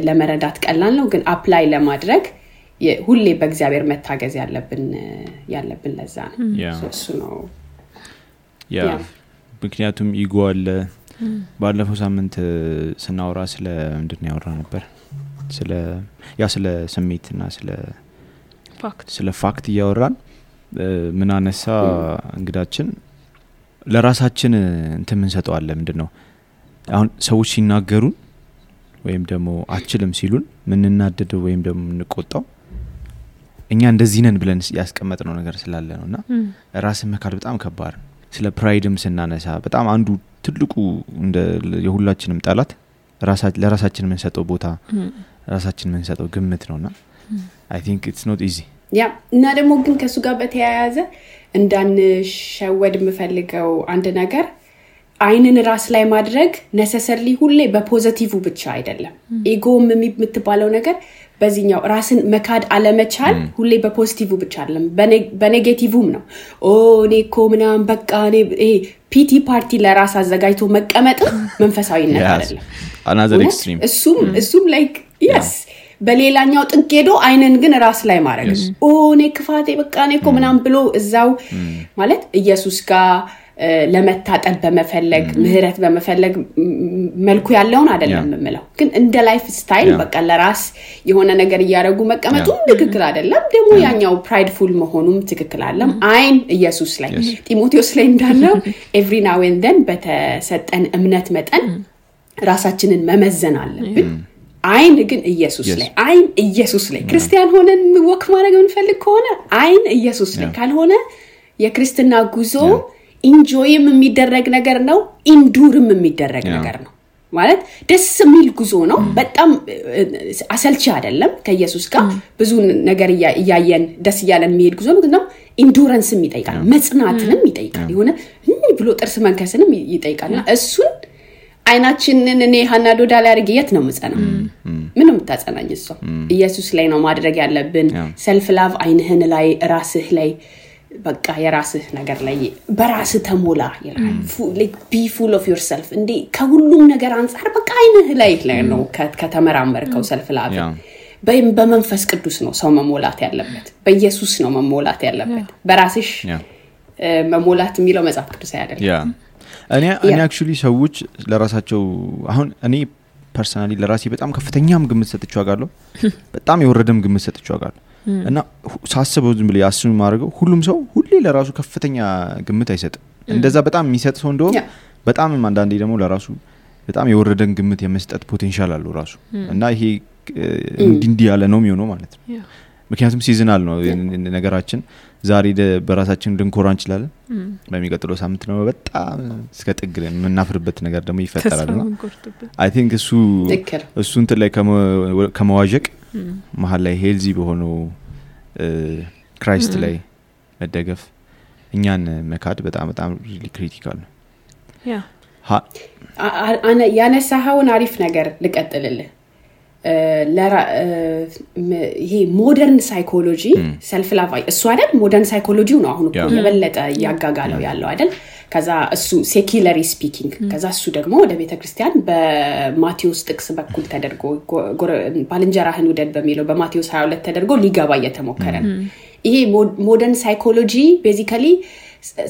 ለመረዳት ቀላል ነው ግን አፕላይ ለማድረግ ሁሌ በእግዚአብሔር መታገዝ ያለብን ለዛ ነው እሱ ነው ምክንያቱም ኢጎ አለ ባለፈው ሳምንት ስናወራ ስለ ምንድነው ያወራ ነበር ስለ ስሜትና ስለ ስለ ፋክት እያወራን ምን አነሳ እንግዳችን ለራሳችን እንትን ምን ሰጠዋለ ምንድነው አሁን ሰዎች ሲናገሩን ወይም ደግሞ አችልም ሲሉን ምን እናደደው ወይም ደግሞ እንቆጣው እኛ እንደዚህ ነን ብለን ያስቀመጥነው ነገር ስላለ ነውና ራስን መካድ በጣም ከባድ ነው ስለ ፕራይድም ስናነሳ በጣም አንዱ ትልቁ እንደ የሁላችንም ጣላት ለራሳችን ምን ሰጠው ቦታ ራሳችን ምን ሰጠው ግምት ነውና I think it's not easy ያ እና ደግሞ ግን ከሱ ጋር በተያያዘ እንዳንሸወድ የምፈልገው አንድ ነገር አይንን ራስ ላይ ማድረግ necessarily ሁሌ በፖዚቲቭ ብቻ አይደለም ኢጎም የምትባለው ነገር በዚህኛው ራስን መካድ አለመቻል ሁሌ በፖዚቲቭ ብቻ አይደለም በኔጌቲቭም ነው እኔ እኮ ምናምን በቃ እኔ ፒቲ ፓርቲ ለራስ አዘጋጅቶ መቀመጥ መንፈሳዊነት አይደለም another extreme እሱም like yes በሌላኛው ጥንቄዶ አይንን ግን ራስ ላይ ማድረግ እኔ ክፋቴ በቃ እኔ እኮ ምናምን ብሎ እዛው ማለት ኢየሱስ ጋር ለመታጠብ በመፈለግ ምህረት በመፈለግ መልኩ ያለውን አይደለም የምለው ግን እንደ ላይፍ ስታይል በቃ ለራስ የሆነ ነገር ያያረጉ መቀመጡ ትክክል አይደለም ደግሞ ያኛው ፕራይድፉል መሆኑም ትክክል አይደለም አይን ኢየሱስ ላይ ጢሞቴዎስ ላይ እንዳለው every now and then በተሰጠን እምነት መጠን ራሳችንን መመዘን አለብን አይን ግን ኢየሱስ ላይ አይን ኢየሱስ ላይ ክርስቲያን ሆነን ወክ ማድረግ እንፈልግ ከሆነ አይን ኢየሱስ ላይ ካልሆነ የክርስትና ጉዞ ኢንጆይም የሚደረግ ነገር ነው ኢንዱርም የሚደረግ ነገር ነው ማለት ደስ የሚል ጉዞ ነው በጣም አሰልቺ አይደለም ከኢየሱስ ጋር ብዙ ነገር ያያየን ደስ ያለን የሚሄድ ጉዞ ነው ኢንዱራንስም ይጠይቃል መጽናትንም ይጠይቃል የሆነ ብሎ ጥርስ መንከስንም ይጠይቃልና እሱን አይናችንን እኔ ሃናዶ ዳላ ያርግየት ነው መጸና ምንም ታጸናኝ እሱ ኢየሱስ ላይ ነው ማድረግ ያለብን self love አይንህን ላይ ራስህ ላይ በቃ የራስህ ነገር ላይ በራስህ ተሞላ ይላል like be full of yourself እንዴ ከሁሉም ነገር አንፃር በቃ አይንህ ላይ ነው ከተመራመርከው self love በመንፈስ ቅዱስ ነው ሰው መሞላት ያለበት በኢየሱስ ነው መሞላት ያለበት በራስሽ መሞላት የሚለው መጽሐፍ ቅዱስ አይደለም እኔ actually ሰዎች ለራሳቸው አሁን እኔ ፐርሰናሊ ለራሴ በጣም ከፍተኛም ግምት ሰጥቼው አጋለሁ በጣም የወረደም ግምት ሰጥቼው አጋለሁ እና ሳስበው ዝም ብለ ያስኑ ማድረገው ሁሉም ሰው ሁሌ ለራሱ ከፍተኛ ግምት አይሰጥም እንደዛ በጣም የሚሰጥ ሰው እንደው በጣም አንዳንዴ ደግሞ ለራሱ በጣም የወረደን ግምት የመስጠት ፖቴንሻል አለው ራሱ እና ይሄ እንዲህ ያለ ነው የሚሆነው ማለት ነው ምክንያቱም ሲዝናል ነው ነገራችን ዛሬ በራሳችን ድንኮራ እንችላለን በሚቀጥለው ሳምንት ነው በጣም እስከ ጥግለን ምናፍርበት ነገር ደግሞ ይፈጠራልና I think እሱ እንትን ላይ ከመዋዠቅ መሃል ላይ ሄልዚ በሆነው ክራይስት ላይ መደገፍ እኛን መካድ በጣም በጣም ሪሊ ክሪቲካል ነው ያ አና ያነሳውን አሪፍ ነገር ልቀጥልልህ ይሄ ሞደርን ሳይኮሎጂ self love እሱ አይደል ሞደርን ሳይኮሎጂው ነው አሁን እኮ የበለጠ ያጋጋለው ያለው አይደል ከዛ እሱ ሴኩላሪ ስፒኪንግ ከዛ እሱ ደግሞ ወደ ቤተክርስቲያን በማቴዎስ ጥቅስ በኩል ተደርጎ ባልንጀራህን ውደድ በሚለው በማቴዎስ 22 ተደርጎ ሊገባ እየተሞከረ ነው ይሄ ሞደርን ሳይኮሎጂ ቤዚካሊ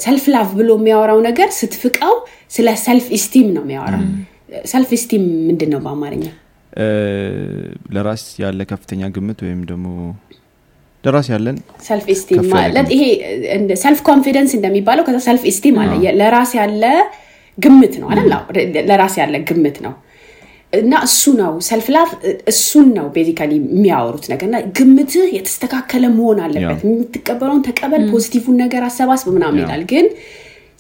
self love ብሎ የሚያወራው ነገር ስትፍቀው ስለ self esteem ነው የሚያወራው self esteem ምንድነው በአማርኛ ለራስ ያለ ከፍተኛ ግምት ወይም ደግሞ ለራስ ያለን self esteem ማለት ይሄ self confidence እንደሚባለው ከዛ self esteem አለ ለራስ ያለ ግምት ነው አይደል ለራስ ያለ ግምት ነው እና እሱ ነው self love እሱን ነው ቤዚካሊ የሚያወሩት ነገርና ግምትህ የተስተካከለ መሆን አለበት የምትቀበለውን ተቀበል ፖዚቲቭን ነገር አሰባስብ ምናምን ይላል ግን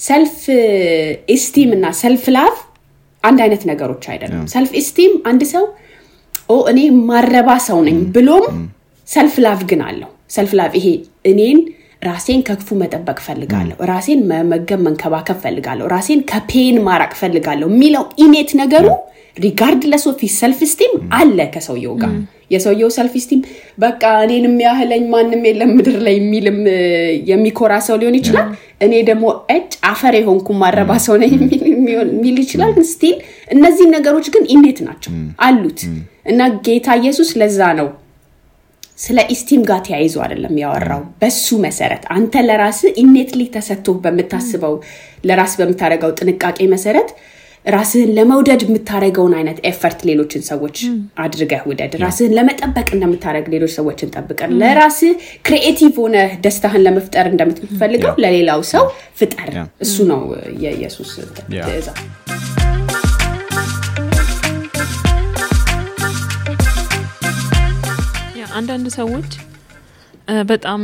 self esteem እና self love አንድ አይነት ነገሮች አይደለም self esteem አንድ ሰው እኔ ማረባ ሰው ነኝ ብሎም self love ግን አለው self love ይሄ እኔን ራሴን ከክፉ መጠበቅ ፈልጋለሁ ራሴን መመገብ መንከባከብ ፈልጋለሁ ራሴን ከፔን ማራቅ ፈልጋለሁ ሚለው ኢኔት ነገሩ regardless of his self esteem አለ ከሰውየው ጋር የሰውየው self esteem በቃ እኔንም ያህለኝ ማንንም የለም ምድር ላይ የሚልም የሚኮራ ሰው ሊሆን ይችላል እኔ ደግሞ አፈር የሆንኩ ማረባ ሰው ነኝ የሚል ይችላል ግን ስቲል እነዚህ ነገሮች ግን ኢኔት ናቸው አሉት እና ጌታ ኢየሱስ ለዛ ነው ስለ ኢስቲም ጋር ተያይዞ አይደለም ያወራው በሱ መሰረት አንተ ለራስ ኢኔትሊ ተሰጥቶ በመታስበው ለራስ በመታረጋው ጥንቃቄ መሰረት ራስህን ለመውደድ የምታረገውን አይነት ኤፈርት ሌሎችን ሰዎች አድርገህ ውደድ ራስህን ለመጠበቅ እንደምታረግ ሌሎች ሰዎችን ጠብቀህ ለራስህ ክሪኤቲቭ ሆነ ደስታህን ለመፍጠር እንደምትፈልገው ለሌላው ሰው ፍጠር እሱ ነው የኢየሱስ ትእዛዝ አንዳንድ ሰዎች በጣም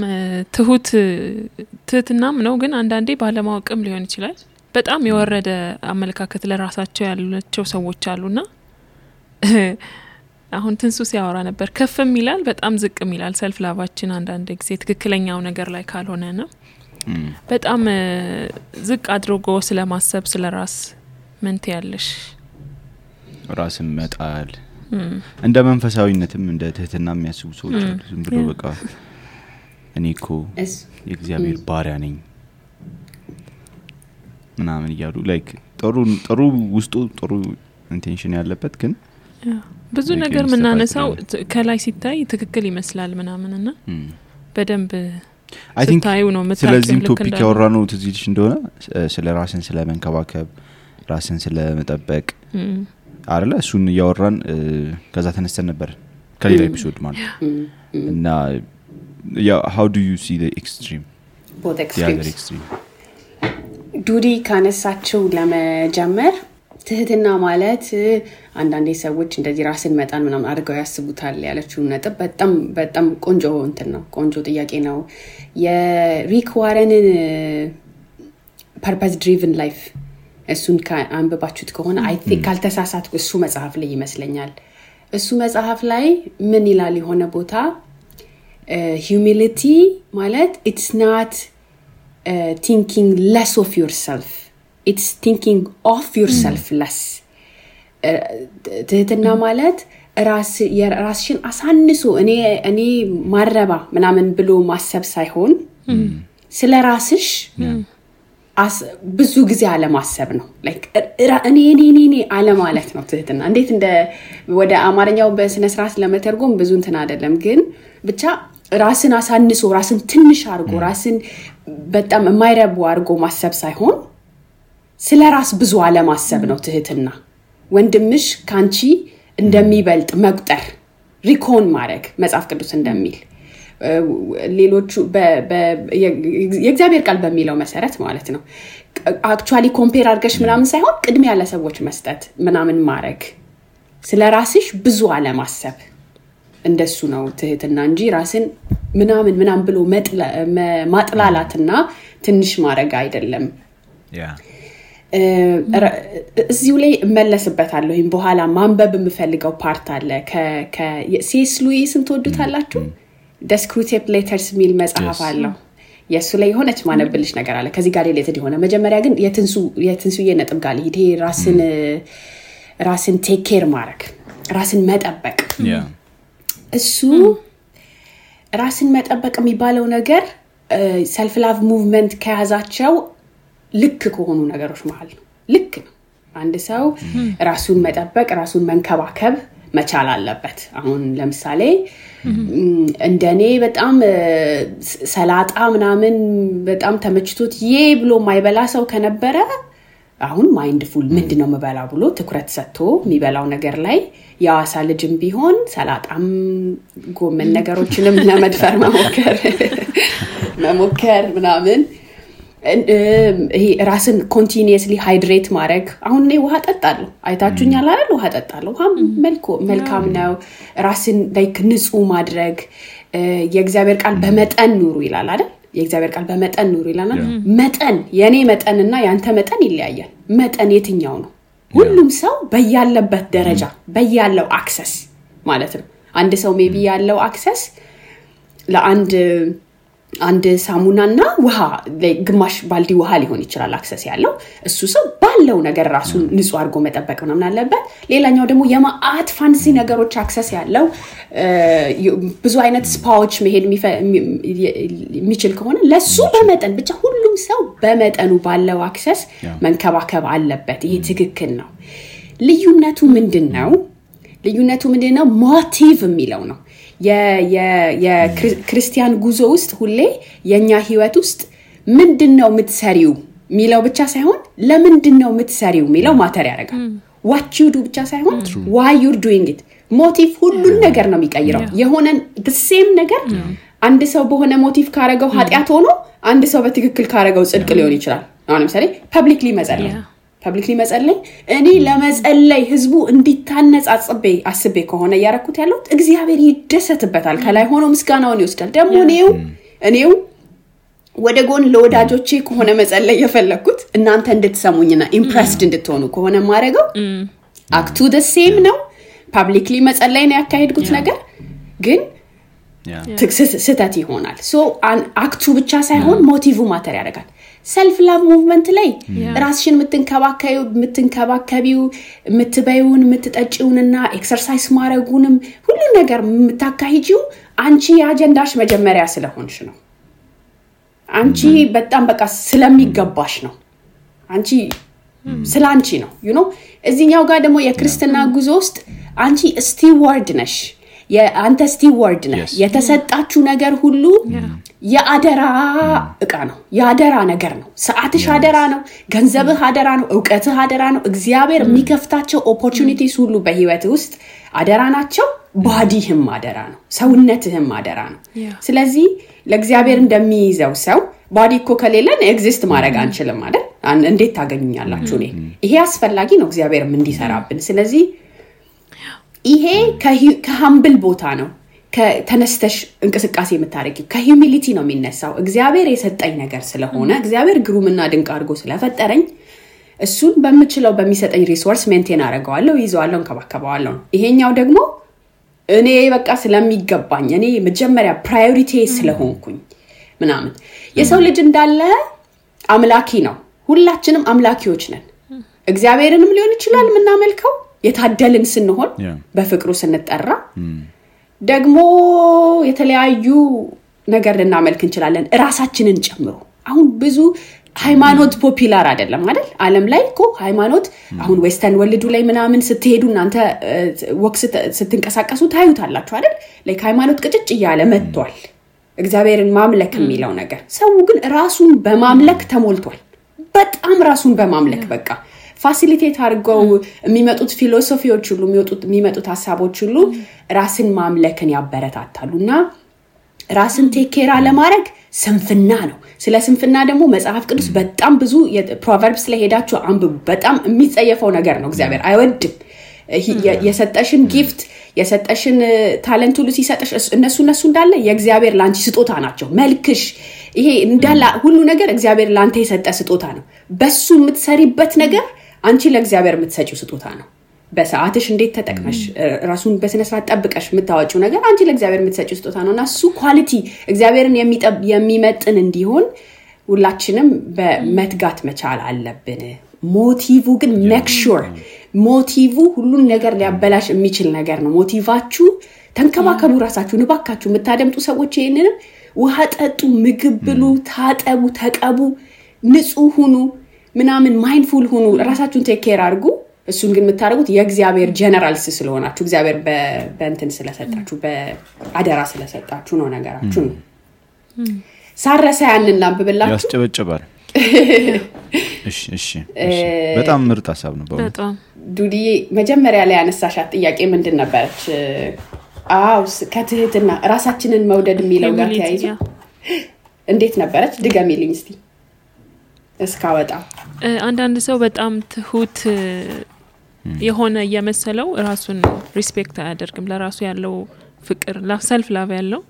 ትህትናም ነው ግን አንዳንዴ ባለማወቅም ሊሆን ይችላል በጣም የወረደ አመለካከት ለራሳቸው ያላቸው ሰዎች አሉና አሁን ትንሱ ሲያወራ ነበር ከፍም ይላል በጣም ዝቅም ይላል ሰልፍ ላቫችን አንዳንድ ጊዜ ትክክለኛው ነገር ላይ ካልሆነና በጣም ዝቅ አድርጎ ስለማሰብ ስለራስ ምን ትያለሽ ራስን መጣል እንደ መንፈሳዊነትም እንደ ትህትና የሚያስቡ ሰዎች አሉ ዝም ብሎ በቃ እኔኮ የእግዚአብሔር ባሪያ ነኝ ምናምን ይያሉ ላይክ ጥሩ ውስጡ ጥሩ ኢንቴንሽን ያለበት ግን ብዙ ነገር ምናነሳው ከላይ ሲታይ ትክክል ይመስላል ምናምንና በደንብ I think ስለዚህ ቶፒክ ያወራነው ትዝይልሽ እንደሆነ ስለ ራስን ስለ መንከባከብ ራስን ስለ መጠበቅ አይደለ እሱን ያወራን ከዛ ተነስተን ነበር ከሌላ ኤፒሶድ ማለት እና how do you see the extreme both extremes ዱዲ ካነሳቸው ለመጀመር ትህትና ማለት አንዳንዴ ሰዎች እንደዚህ ራስን መጣን ምናምን አድርገው ያስቡታል ያለችው ነጥብ በጣም ቆንጆ እንትን ነው ቆንጆ ጥያቄ ነው የሪክ ዋረንን purpose driven life እሱን አንብባችሁት ከሆነ አይ ቲንክ ካልተሳሳትኩ እሱ መጽሐፍ ላይ ይመስለኛል እሱ መጽሐፍ ላይ ምን ይላል የሆነ ቦታ humility ማለት it's not thinking less of yourself it's thinking of yourself less ትህትና ማለት ራስሽን አሳንሶ እኔ ማረባ ምናምን ብሎ ማሰብ ሳይሆን ስለ ራስሽ ብዙ ጊዜ አለ ማሰብ ነው ላይክ እኔ አለ ማለት ነው ትህትና እንዴት እንደ ወደ አማርኛው በስነ ስርዓት ለመተርጎም ብዙ እንትን አይደለም ግን ብቻ ራስን አሳንሶ ራስን ትንሽ አርጎ ራስን በጣም የማይረቡ አርጎ ማሰብ ሳይሆን ስለ ራስ ብዙ አለ ማሰብ ነው ትህትና ወንድምሽ ካንቺ እንደሚበልጥ መቁጠር ሪኮን ማድረግ መጽሐፍ ቅዱስ እንደሚል ሌሎቹ የእግዚአብሔር ቃል በሚለው መሰረት ማለት ነው አክቹአሊ ኮምፔር አድርገሽ ምናምን ሳይሆን ቅድሚያ ለሰዎች መስጠት ምናምን ማድረግ ስለ ራስሽ ብዙ አለ ማሰብ እንደሱ ነው ትህትና እንጂ ራስን ምናምን ብሎ ማጥላላትና ትንሽ ማድረግ አይደለም እዚሁ ላይ መለስበታለሁ በኋላ ማንበብ የምፈልገው ፓርት አለ ከሲኤስ ሉዊስን ተወዱታላችሁ Descriptive Letters ሚል መጽሐፍ አለው የሱ ላይ ሆነች ማነብልሽ ነገር አለ ከዚህ ጋር ሪሌትድ ሆነ መጀመሪያ ግን የትንሱዬ ነጥብ ጋር ይሄ ራስን ቴክ ኬር ማድረግ ራስን መጠበቅ እሱ ራስን መጠበቅ የሚባለው ነገር ሰልፍ ላቭ ሙቭመንት ከያዛቸው ልክ ከሆኑ ነገሮች መሃል ነው ልክ ነው አንድ ሰው ራሱን መጠበቅ ራሱን መንከባከብ መቻል አለበት አሁን ለምሳሌ እንደኔ በጣም ሰላጣ ምናምን በጣም ተመችቶት ብሎ ማይበላ ሰው ከነበረ አሁን ማይንድፉል ምንድነው መበላ ብሎ ትኩረት ሰጥቶ የሚበላው ነገር ላይ ያዋሳ ልጅም ቢሆን ሰላጣም ጎመን ነገሮችንም ለመድፈር መሞከር ምናምን ይሄ ራስን ኮንቲኒየስሊ ሃይድሬት ማድረግ አሁን እኔ ውሃ ጠጣለሁ አይታችሁኛል አይደል ውሃ ጠጣለሁ ውሃ መልካም ነው ራስን ላይክ ንጹህ ማድረግ የእግዚአብሔር ቃል በመጠን ኑሩ ይላል አይደል የእግዚአብሔር ቃል በመጠን ኑሩ ይላል መጠን የኔ መጠንና ያንተ መጠን ይለያያል መጠን የትኛው ነው ሁሉም ሰው በያለበት ደረጃ በያለው አክሰስ ማለት ነው አንድ ሰው ሜቢ ያለው አክሰስ ለአንድ ሳሙናና ውሃ ግማሽ ባልዲ ውሃ ሊሆን ይችላል አክሰስ ያለው እሱ ሰው ባለው ነገር ራሱን ንጹህ አድርጎ መጠበቅ ምናምን አለበት ሌላኛው ደግሞ የማአት ፋንሲ ነገሮች አክሰስ ያለው ብዙ አይነት ስፓዎች መሄድ የሚችል ከሆነ ለሱ በመጠን ብቻ ሁሉም ሰው በመጠኑ ባለው አክሰስ መንከባከብ አለበት ይሄ ትክክል ነው ልዩነቱ ምንድነው ሞቲቭ የሚለው ነው የክርስቲያን ጉዞ ውስጥ ሁሌ የኛ ህይወት ውስጥ ምንድነው የምትሰሪው ሚለው ብቻ ሳይሆን ለምንድነው የምትሰሪው ሚለው ማተር ያደርጋል what you do ብቻ ሳይሆን why you're doing it ሞቲቭ ሁሉን ነገር ነው የሚቀይረው የሆነ the same ነገር አንድ ሰው በሆነ ሞቲቭ ካረገው ኃጢያት ሆኖ አንድ ሰው በትክክል ካረገው ጽድቅ ሊሆን ይችላል አሁን ለምሳሌ ፐብሊክሊ መጸለይ እኔ ለመጸለይ ህዝቡ እንዲታነጽ አስቤ ከሆነ ያረኩት ያለው እግዚአብሔር ይደሰትበታል ከላይ ሆኖ ምስጋናውን ይወስዳል ደግሞ እኔው ወደ ጎን ለወዳጆቼ ከሆነ መጸለይ የፈለኩት እናንተ እንድትሰሙኝና ኢምፕሬስድ እንድትሆኑ ከሆነ ማረገው አክቱ the same ነው ፐብሊክሊ መጸለይ ነው ያካሄድኩት ነገር ግን ስህተት ይሆናል ሶ አክቱ ብቻ ሳይሆን ሞቲቭ ማተር ያደርጋል self love movement ላይ ራስሽን የምትንከባከቢው የምትበዩን የምትጠጪውንና ኤክሰርሳይዝ ማድረጉንም ሁሉ ነገር የምታካሂጂው አንቺ የአጀንዳሽ መጀመሪያ ስለሆንሽ ነው አንቺ በጣም በቃ ስለሚገባሽ ነው አንቺ ስላንቺ ነው you know እዚህኛው ጋር ደግሞ የክርስትና ጉዞ ውስጥ አንቺ ስቲዋርድ ነሽ የአንተ ስቲዋርድ ነሽ የተሰጣችሁ ነገር ሁሉ የአደራ እቃ ነው የአደራ ነገር ነው ሰዓትሽ አደራ ነው ገንዘብህ አደራ ነው ዕውቀትህ አደራ ነው እግዚአብሔር የሚከፍታቸው ኦፖርቹኒቲስ ሁሉ በህይወት ውስጥ አደራ ናቸው ባዲህም አደራ ነው ሰውነትህም አደራ ነው ስለዚህ ለእግዚአብሔር እንደሚይዘው ሰው ባዲ እኮ ከሌለን ኤግዚስት ማድረግ አንችልም አይደል እንዴት ታገኙኛላችሁ ይሄ አስፈላጊ ነው እግዚአብሔርም እንዲሰራብን ስለዚህ ይሄ ከሀምብል ቦታ ነው ከተነስተሽ እንቅስቃሴ የምታረጊው ከሂዩሚሊቲ ነው የሚነሳው እግዚአብሔር የሰጠኝ ነገር ስለሆነ እግዚአብሔር ግሩምና ድንቅ አድርጎ ስለፈጠረኝ እሱን በሚችለው በሚሰጠኝ ሪሶርስ ሜንቴን አደርገዋለሁ ይዘዋለሁ እንከባከባለሁ ይሄኛው ደግሞ እኔ በቃ ስለሚገባኝ እኔ መጀመሪያ ፕራዮሪቲ ስለሆንኩኝ ምናምን የሰው ልጅ እንዳለ አምላኪ ነው ሁላችንም አምላኪዎች ነን እግዚአብሔርንም ሊሆን ይችላል ምናመልከው የታደልን ስንሆን በፍቅሩ ስንጠራ ደግሞ የተለያዩ ነገር ልናመልክ እንችላለን ራሳችንን ጨምሮ አሁን ብዙ ሃይማኖት ፖፑላር አይደለም አይደል ዓለም ላይ እኮ ሃይማኖት አሁን ዌስተርን ወርልዱ ላይ ምናምን ስትሄዱ እናንተ ወክስ ስትንቀሳቀሱ ታዩታላችሁ አይደል ላይክ ሃይማኖት ቅጭጭ ይያለ መጥቷል እግዚአብሔርን ማምለክ የሚለው ነገር ሰው ግን ራሱን በማምለክ ተሞልቷል በጣም ራሱን በማምለክ በቃ ፋሲሊቴት አድርገው የሚመጡት ፊሎሶፊዎች ሁሉ የሚመጡት ሐሳቦች ሁሉ ራስን ማምለክን ያበረታታሉና ራስን ቴኬራ ለማድረግ ስንፍና ነው ስለ ስንፍና ደግሞ መጽሐፍ ቅዱስ በጣም ብዙ ፕሮቨርብስ ላይ ሄዳችሁ አንብቡ በጣም የሚጸየፈው ነገር ነው እግዚአብሔር አይወድም የሰጠሽን ጊፍት የሰጠሽን ታለንት ሁሉ ሲሰጥሽ እነሱ እንዳለ የእግዚአብሔር ላንቺ ስጦታ ናቸው መልክሽ ይሄ እንዳለ ሁሉ ነገር እግዚአብሔር ላንተ የሰጠ ስጦታ ነው በሱ የምትሰሪበት ነገር አንቺ ለእግዚአብሔር የምትሰጪው ስጦታ ነው በሰዓትሽ እንዴት ተጠቅመሽ ራሱን በስነ ስርዓት ጠብቀሽ የምታወጪው ነገር አንቺ ለእግዚአብሔር የምትሰጪው ስጦታ ነውና እሱ ኳሊቲ እግዚአብሔርን የሚመጥን እንዲሆን ሁላችንም በመትጋት መቻል አለብን ሞቲቭ ግን ሜክ ሹር ሞቲቭ ሁሉን ነገር ሊያበላሽ የሚችል ነገር ነው ሞቲቫችሁ ተንከባከቡ ራሳችሁን ባካችሁ የምታደምጡ ሰዎች ይሄንንም ውሃ ጠጡ ምግብ ብሉ ታጠቡ ተቀቡ ንጹህ ሁኑ ምናምን ማይንድፉል ሁኑ ራሳችሁን ቴክ ኬር አድርጉ እሱን ግን የምታደርጉት የእግዚአብሔር ጀነራልስ ስለሆናችሁ እግዚአብሔር በእንትን ስለሰጣችሁ በአደራ ስለሰጣችሁ ነው ነገራችሁ ሳረሳ ያንን ላንብብላችሁ ያስጨበጨባል እሺ በጣም ምርጥ ሐሳብ ነው በጣም ዱዲ መጀመሪያ ላይ ያነሳሻት ጥያቄ ምንድን ነበረች ከትህትና ራሳችንን መውደድ የሚለው ጋር ተያይዞ እንዴት ነበረች ድገሚልኝ እስቲ እስካወጣ አንዳንድ ሰው በጣም ትሁት የሆነ የመሰለው ራሱን ሪስፔክት አያደርግም ለራሱ ያለው ፍቅር ሰልፍ ላቭ ያለው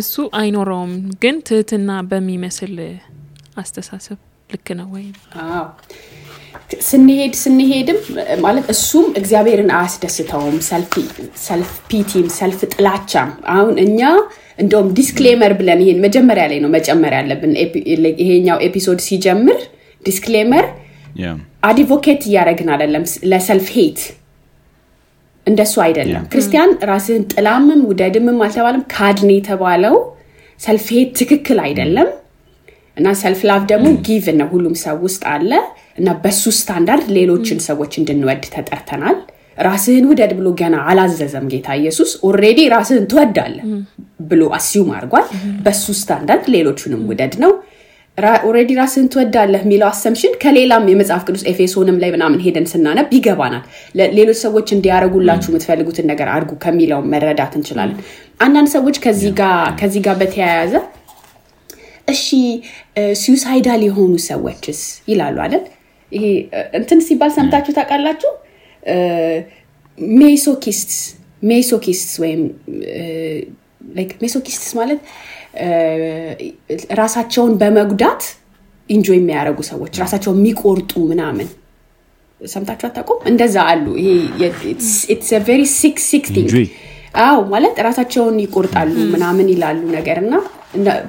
እሱ አይኖረውም ግን ትህትና በሚመስል አስተሳሰብ ልክ ነው ወይ ስንሄድም ማለት እሱም እግዚአብሔርን አያስደስተውም ሰልፍ ፒቲም ሰልፍ ጥላቻም አሁን እኛ እንደውም ዲስክሌመር ብለን ይሄን መጀመሪያ ላይ ነው መጨመር ያለብን ይሄኛው ኤፒሶድ ሲጀምር ዲስክሌመር አድቮኬት ያረግና አይደለም ለሰልፍ ሄት እንደሱ አይደለም ክርስቲያን ራስን ጥላምም ውደድምም አልተባለም ካድኔ ተባለው ሰልፍ ሄት ትክክል አይደለም እና ሰልፍ ላቭ ደግሞ ጊቭ ነው ሁሉም ሰው ውስጥ አለ እና በሱ ስታንዳርድ ሌሎችን ሰዎች እንድንወድ ተጠርተናል ራስህን ውደድ ብሎ ገና አላዘዘም ጌታ ኢየሱስ ኦሬዲ ራስህን ትወዳለህ ብሎ አስዩም አድርጓል በሱ ስታንዳርድ ሌሎችንም ውደድ ነው ኦሬዲ ራስን ትወዳለህ የሚለው አሰምሽን ከሌላም የመጽሐፍ ቅዱስ ኤፌሶንም ላይ ምናምን ሄደን ስናነብ ይገባናል ሌሎች ሰዎች እንዲያረጉላችሁ የምትፈልጉትን ነገር አድርጉ ከሚለው መረዳት እንችላለን አንዳንድ ሰዎች ከዚህ ጋር በተያያዘ እሺ suicidal የሆኑ ሰዎችስ ይላሉ አይደል ይሄ እንትን ሲባል ሰምታችሁ ታውቃላችሁ ሜሶኪስትስ ወይም like ሜሶኪስትስ ማለት ራሳቸውን በመጉዳት ኢንጆይ የሚያደርጉ ሰዎች ራሳቸውን የሚቆርጡ ምናምን ሰምታችሁ አታውቁም እንደዛ አሉ ይሄ it's a very sick thing አው ማለት ራሳቸውን ይቆርጣሉ ምናምን ይላሉ ነገርና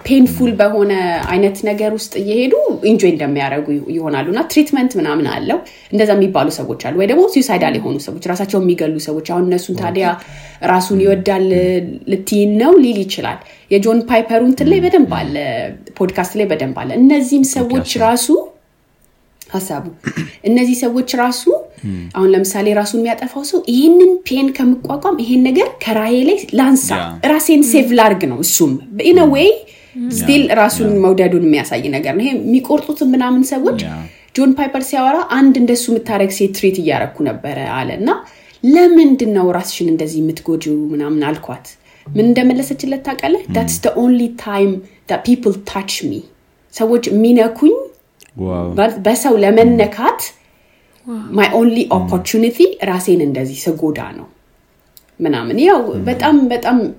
ፔንፉል በሆነ አይነት ነገር ውስጥ እየሄዱ ኢንጆይ እንደሚያደርጉ ይሆናሉና ትሪትመንት ምናምን አለው እንደዛ የሚባሉ ሰዎች አሉ ወይ ደግሞ suicidal የሆኑ ሰዎች ራሳቸውን የሚገሉ ሰዎች አሁን እነሱን ታዲያ ራሱን ይወዳል ልትይን ነው ሊል ይችላል የጆን ፓይፐሩን ላይ በደንብ አለ ፖድካስት ላይ በደንብ አለ እነዚህም ሰዎች ራሱ ሐሳቡ እነዚህ ሰዎች ራሱ አሁን ለምሳሌ ራሱን የሚያጠፋው ሰው ይሄንን ፔን ከመቋቋም ይሄን ነገር ከራዬ ላይ ላንሳ ራሴን ሴቭ ላርግ ነው እሱም in a way still ራሱን መውደዱን የሚያሳይ ነገር ነው ይሄ የሚቆርጡት ምናምን ሰዎች ጆን ፓይፐር ሲያወራ አንድ እንደሱ የምታረግ ሴት ትሪት እያረኩ ነበር አለና ለምንድነው ራስሽን እንደዚህ የምትጎጂው ምናምን አልኳት ምን እንደመለሰችለት ታውቃለህ that's the only time that people touch me ሰዎች ሚነኩኝ በሰው ለመነካት my only opportunity ራሴን እንደዚህ ሰጎዳ ነው ምናምን ያው በጣም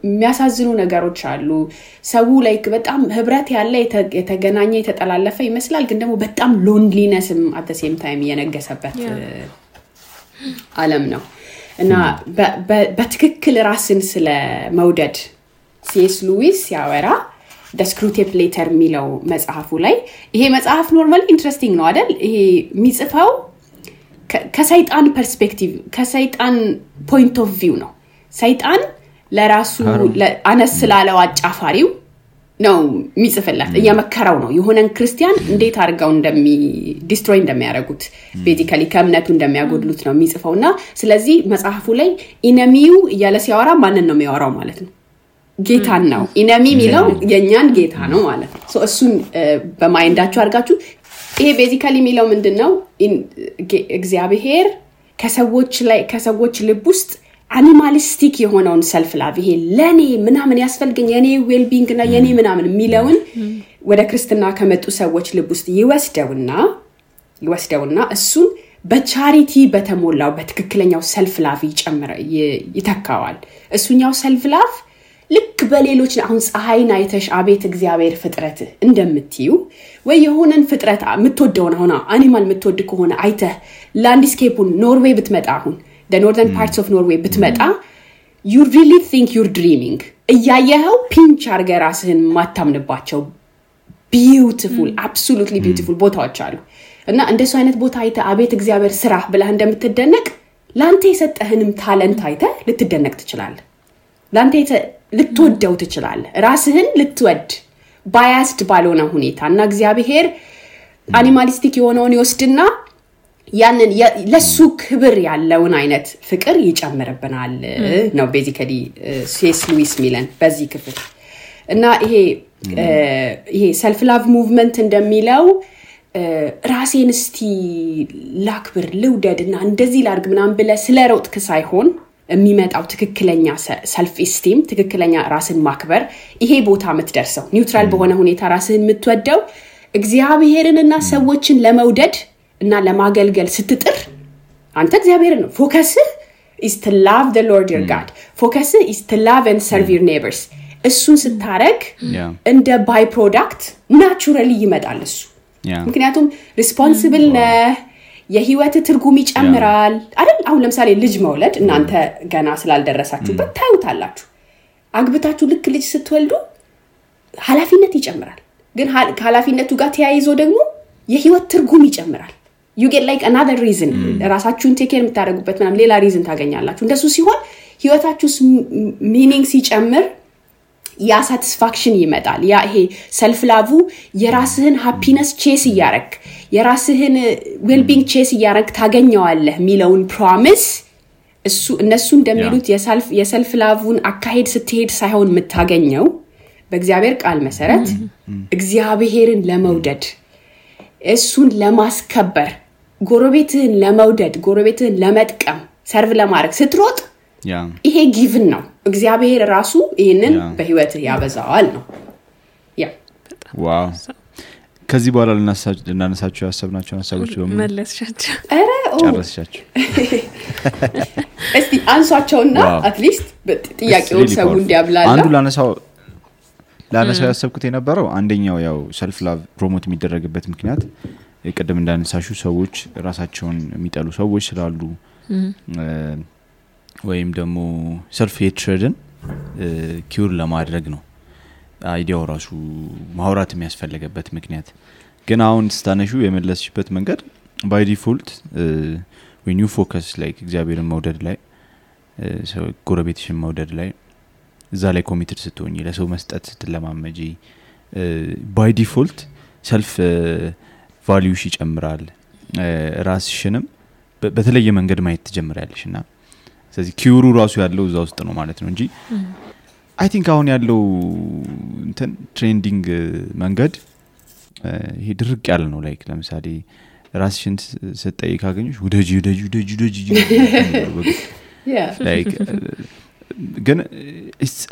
የሚያሳዝኑ ነገሮች አሉ ሰው ላይክ በጣም ህብረት ያለ የተገናኘ የተጠላለፈ ይመስላል ግን ደግሞ በጣም ሎንሊነስም at the same time የነገሰበት ዓለም ነው እና በትክክል ራስን ስለ መውደድ ሲኤስ ሉዊስ ያወራ the Screwtape Letter የሚለው መጽሐፉ ላይ ይሄ መጽሐፍ ኖርማሊ ኢንትረስቲንግ ነው አይደል ይሄ የሚጽፈው ከሰይጣን ፐርስፔክቲቭ ከሰይጣን ፖይንት ኦፍ ቪው ነው ሰይጣን ለራሱ አነስ ስላለው አጫፋሪው ነው የሚጽፍላት እየመከረው ነው የሆነን ክርስቲያን እንዴት አድርገው ዲስትሮይ እንደሚያደርጉት ቤዚካሊ ከእምነቱ እንደሚያጎድሉት ነው የሚጽፈውና ስለዚህ መጽሐፉ ላይ ኢነሚው እያለ ሲያወራ ማንን ነው የሚያወራው ማለት ነው ጌታን ነው ኢነሚ የሚለው የኛን ጌታ ነው ማለት ነው ሶ እሱን በማይንዳችሁ አድርጋችሁ ይሄ ቤዚካሊ የሚለው ምንድነው እግዚአብሔር ከሰዎች ልብ ውስጥ አኒማሊስቲክ የሆነውን ሰልፍ ላቭ ይሄ ለኔ ምናምን ያስፈልገኝ የኔ ዌል ቢንግ እና የኔ ምናምን የሚለውን ወደ ክርስትና ከመጡ ሰዎች ልብ ውስጥ ይወስደውና እሱን በቻሪቲ በተሞላው በትክክለኛው ሰልፍ ላቭ ይተካዋል እሱኛው ሰልፍ ላቭ ልክ በሌሎች አሁን ፀሐይን አይተሽ አቤት እግዚአብሔር ፍጥረት እንደምትዩ ወይ የሆነን ፍጥረት የምትወደውን አሁን አኒማል የምትወድ ከሆነ አይተህ ላንድስኬፑን ኖርዌይ ብትመጣ አሁን the northern parts of Norway ብትመጣ you really think you're dreaming እያየኸው ፒንች አርገህ ራስህን ማታምንባቸው beautiful absolutely beautiful ቦታዎች አሉ እና እንደሱ አይነት ቦታ አይተህ አቤት እግዚአብሔር ስራ ብለህ እንደምትደነቅ ላንተ የሰጠህንም ታለንት አይተህ ልትደነቅ ትችላለህ ላንተ ልትወደው ትችላለህ ራስህን ልትወድ ባያስድ ባልሆነ ሁኔታ እና እግዚአብሔር አኒማሊስቲክ የሆነውን ይወስድና ያንን ለሱ ክብር ያለውን አይነት ፍቅር ይጨምርብናል ነው ቤዚካሊ ሲኤስ ሉዊስ ሚለን በዚህ ክፍል እና ይሄ ሰልፍ ላቭ ሙቭመንት እንደሚለው ራሴን እስቲ ላክብር ልውደድና እንደዚህ ላርግ ምናምን ብለ ስለሮጥክ ሳይሆን የሚመጣው ትክክለኛ ሰልፍ ኢስቲም ትክክለኛ ራስን ማክበር ይሄ ቦታ የምትደርሰው ኒውትራል በሆነ ሁኔታ ራስን የምትወደው እግዚአብሔርንና ሰዎችን ለመውደድ እና ለማገልገል ስትጥር አንተ እግዚአብሔርን ነው ፎከስ is to love the Lord your God focus is to love and serve your neighbors እሱን ስታረግ እንደ ባይ ፕሮዳክት ናቹራሊ ይመጣል እሱ ምክንያቱም ሪስፖንሲብል ነህ የህይወት ትርጉም ይጨምራል አይደል አሁን ለምሳሌ ልጅ መውለድ እናንተ ገና ስላልደረሳችሁበት ታዩታላችሁ አግብታችሁ ልክ ልጅ ስትወልዱ ኃላፊነት ይጨምራል ግን ኃላፊነቱ ጋር ተያይዞ ደግሞ የህይወት ትርጉም ይጨምራል you get like another reason ራሳችሁን ቴክ ኬር የምታደርጉበት ምናምን ሌላ ሪዝን ታገኛላችሁ እንደሱ ሲሆን ህይወታችሁ ሚኒንግ ሲጨምር ያ ሳቲስፋክሽን ይመጣል ያ ይሄ ሰልፍ ላቭ የራስህን ሃፒነስ ቼስ ያረክ የራስህን ዌልቢንግ ቼስ ያረክ ታገኘዋለህ ሚለውን ፕሮሚስ እነሱ እንደሚሉት የሰልፍ ላቭን አካሄድ ስትሄድ ሳይሆን የምታገኘው በእግዚአብሔር ቃል መሰረት እግዚአብሔርን ለመውደድ እሱን ለማስከበር ጎረቤትህን ለመውደድ ጎረቤትህን ለመጥቀም ሰርቭ ለማድረግ ስትሮጥ ይሄ ጊቭን ነው እግዚአብሔር ራሱ ይሄንን በህይወትህ ያበዛዋል ነው ዋው ከዚህ በኋላ ልናነሳቸው ያሰብናቸው ሐሳቦች በሙሉ መለስሻቸው ጨረስሻቸው እስቲ አንሷቸውና አትሊስት ጥያቄው ሰው እንዲያብላላ አንዱ ላነሳው ያሰብኩት የነበረው አንደኛው ያው ሰልፍ ላቭ ፕሮሞት የሚደረግበት ምክንያት የቀደም እንዳነሳሹ ሰዎች ራሳቸውን የሚጠሉ ሰዎች ስላሉ ወይም ደግሞ ሰልፍ ሄትሬድን ኪውር ለማድረግ ነው አይዲያው ራሱ ማውራት የሚያስፈልገበት ምክንያት ግን አሁን ስታነሹ የመለስሽበት መንገድ by default when you focus like እግዚአብሔርን መውደድ ላይ ሰው ጎረቤትሽን መውደድ ላይ እዛ ላይ ኮሚትድ ስትሆኚ ለሰው መስጠት ስትለማመጂ by default self value ይጨምራል ራስሽንም በተለየ መንገድ ማየት ትጀምራለሽና ስለዚህ ኪውሩ ራሱ ያለው እዛ ውስጥ ነው ማለት ነው እንጂ I think አሁን ያለው እንትን ትሬንዲንግ መንገድ ይሄ ድርቅ ያለ ነው ላይክ ለምሳሌ ራስሽን ስትጠይ ካገኙሽ ወደጂ ላይክ ግን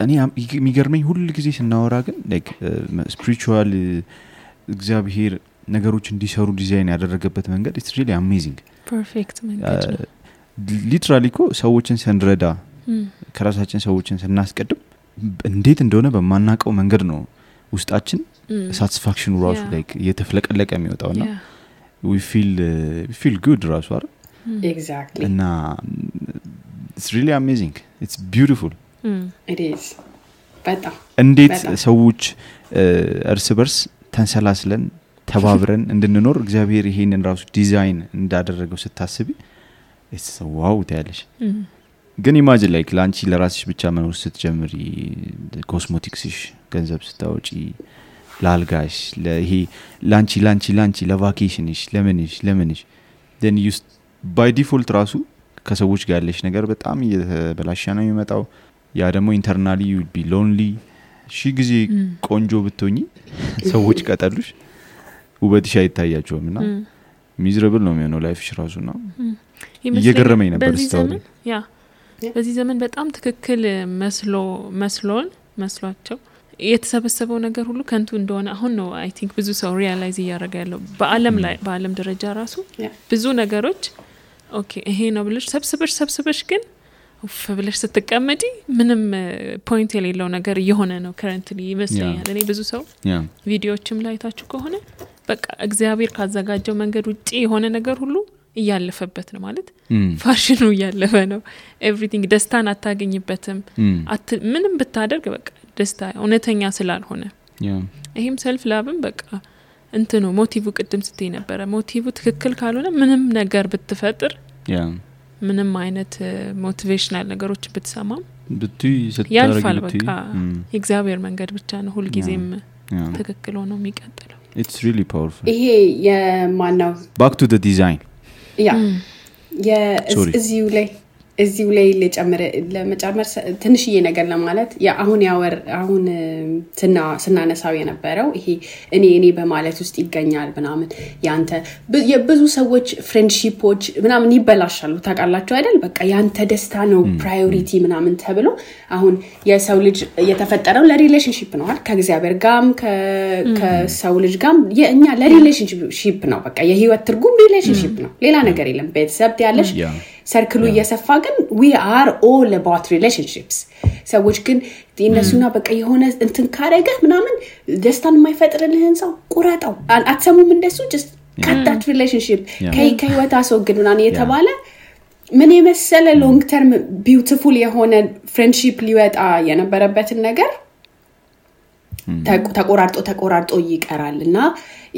እኔ የሚገርመኝ ሁሉ ጊዜ ስናወራ ግን ላይክ ስፒሪቹዋል እግዚአብሔር ነገሮች እንዲሰሩ ዲዛይን ያደረገበት መንገድ it's really amazing ፐርፌክት መንገድ ነው ሊትራሊ እኮ ሰዎችን ስንረዳ ከራሳችን ሰዎችን ስናስቀድም እንዴት እንደሆነ በማናቀው መንገድ ነው ውስጣችን ሳቲስፋክሽኑ ራሱ ላይክ የተፍለቀለቀ የሚወጣውና we feel good ራሱ አይደል exactly እና it's really amazing it's beautiful it is በጣም እንዴት ሰዎች እርስ በርስ ተንሰላስለን ተባብረን እንድንኖር እግዚአብሔር ይሄንን ራሱ ዲዛይን እንዳደረገው ስታስቢ it's wow ታያለሽ ግን ኢማጂን ላይክ ላንቺ ለራስሽ ብቻ መኖር ስትጀምሪ ኮስሞቲክስሽ ገንዘብ ስታወጪ ላልጋሽ ለይሄ ላንቺ ለቫኬሽንሽ ለምንሽ then you by default ራሱ ከሰዎች ጋር ያለሽ ነገር በጣም እየተበላሸ ነው የሚመጣው ያ ደግሞ ኢንተርናሊ you would be lonely ጊዜ ቆንጆ ብትሆኚ ሰዎች ቀጠሉሽ ውበትሽ አይታያቸውምና ሚዘረብል ነው የሚሆነው ላይፍሽ ራሱና እየገረመኝ ነበር ስታወሪ በዚህ ዘመን በጣም ትክክል መስሏቸው የተሰበሰበው ነገር ሁሉ ከንቱ እንደሆነ አሁን ነው አይ ቲንክ ብዙ ሰው ሪያላይዝ ያደረገ ያለው በአለም ደረጃ ራሱ ብዙ ነገሮች ኦኬ ይሄ ነው ብለሽ ሰብስበሽ ግን ብለሽ ስትቀመጪ ምንም ፖይንት የሌለው ነገር እየሆነ ነው ከረንትሊ ይመስለኛል እኔ ብዙ ሰው ቪዲዮዎችም ላይ ታችሁ ከሆነ በቃ እግዚአብሔር ካዘጋጀው መንገድ ውጪ የሆነ ነገር ሁሉ እያለፈበት ነው ማለት ፋሽኑ እያለፈ ነው ኤቭሪቲንግ ደስታን አታገኝበትም ምንም ብታደርግ በቃ ደስታ እውነተኛ ስላልሆነ ይሄም ሰልፍ ላብም በቃ እንትኑ ሞቲቭ ቅድም ስትይ ነበር ሞቲቭ ትክክል ካልሆነ ምንም ነገር ብትፈጥር ምንም አይነት ሞቲቬሽናል ነገሮች ብትሰማም ያልፋል በቃ የእግዚአብሔር መንገድ ብቻ ነው ሁሉ ጊዜም ትክክል ሆኖ የሚቀጥለው it's really powerful ይሄ የማናው back to the design እዚሁ ላይ ለመጨመር ትንሽዬ ነገር ለማለት አሁን ስናነሳው የነበረው ይሄ እኔ በማለት ውስጥ ይገኛል ምናምን ያንተ የብዙ ሰዎች ፍሬንድሺፖች ምናምን ይበላሻሉ ታውቃላችሁ አይደል በቃ ያንተ ደስታ ነው ፕራዮሪቲ ምናምን ተብሎ አሁን የሰው ልጅ የተፈጠረው ለሪሌሽንሺፕ ነው አይደል ከእግዚአብሔር ጋርም ከሰው ልጅ ጋርም የኛ ለሪሌሽንሺፕ ነው በቃ የህይወት ትርጉም ሪሌሽንሺፕ ነው ሌላ ነገር የለም ቤተሰብ ያለሽ ሰርክሉ እየሰፋ ግን we are all about relationships ሰዎች ግን እነሱና በቃ የሆነ እንትን ካረገ ምናምን ደስታን የማይፈጥርልህን ሰው ቁረጠው አትሰሙም እንደሱ just cut that relationship ከህይወት አስወግድ ምናምን የተባለ ምን የመሰለ ሎንግ ተርም ቢዩቲፉል የሆነ ፍሬንድሺፕ ሊወጣ የነበረበትን ነገር ተቆራርጦ ይቀራልና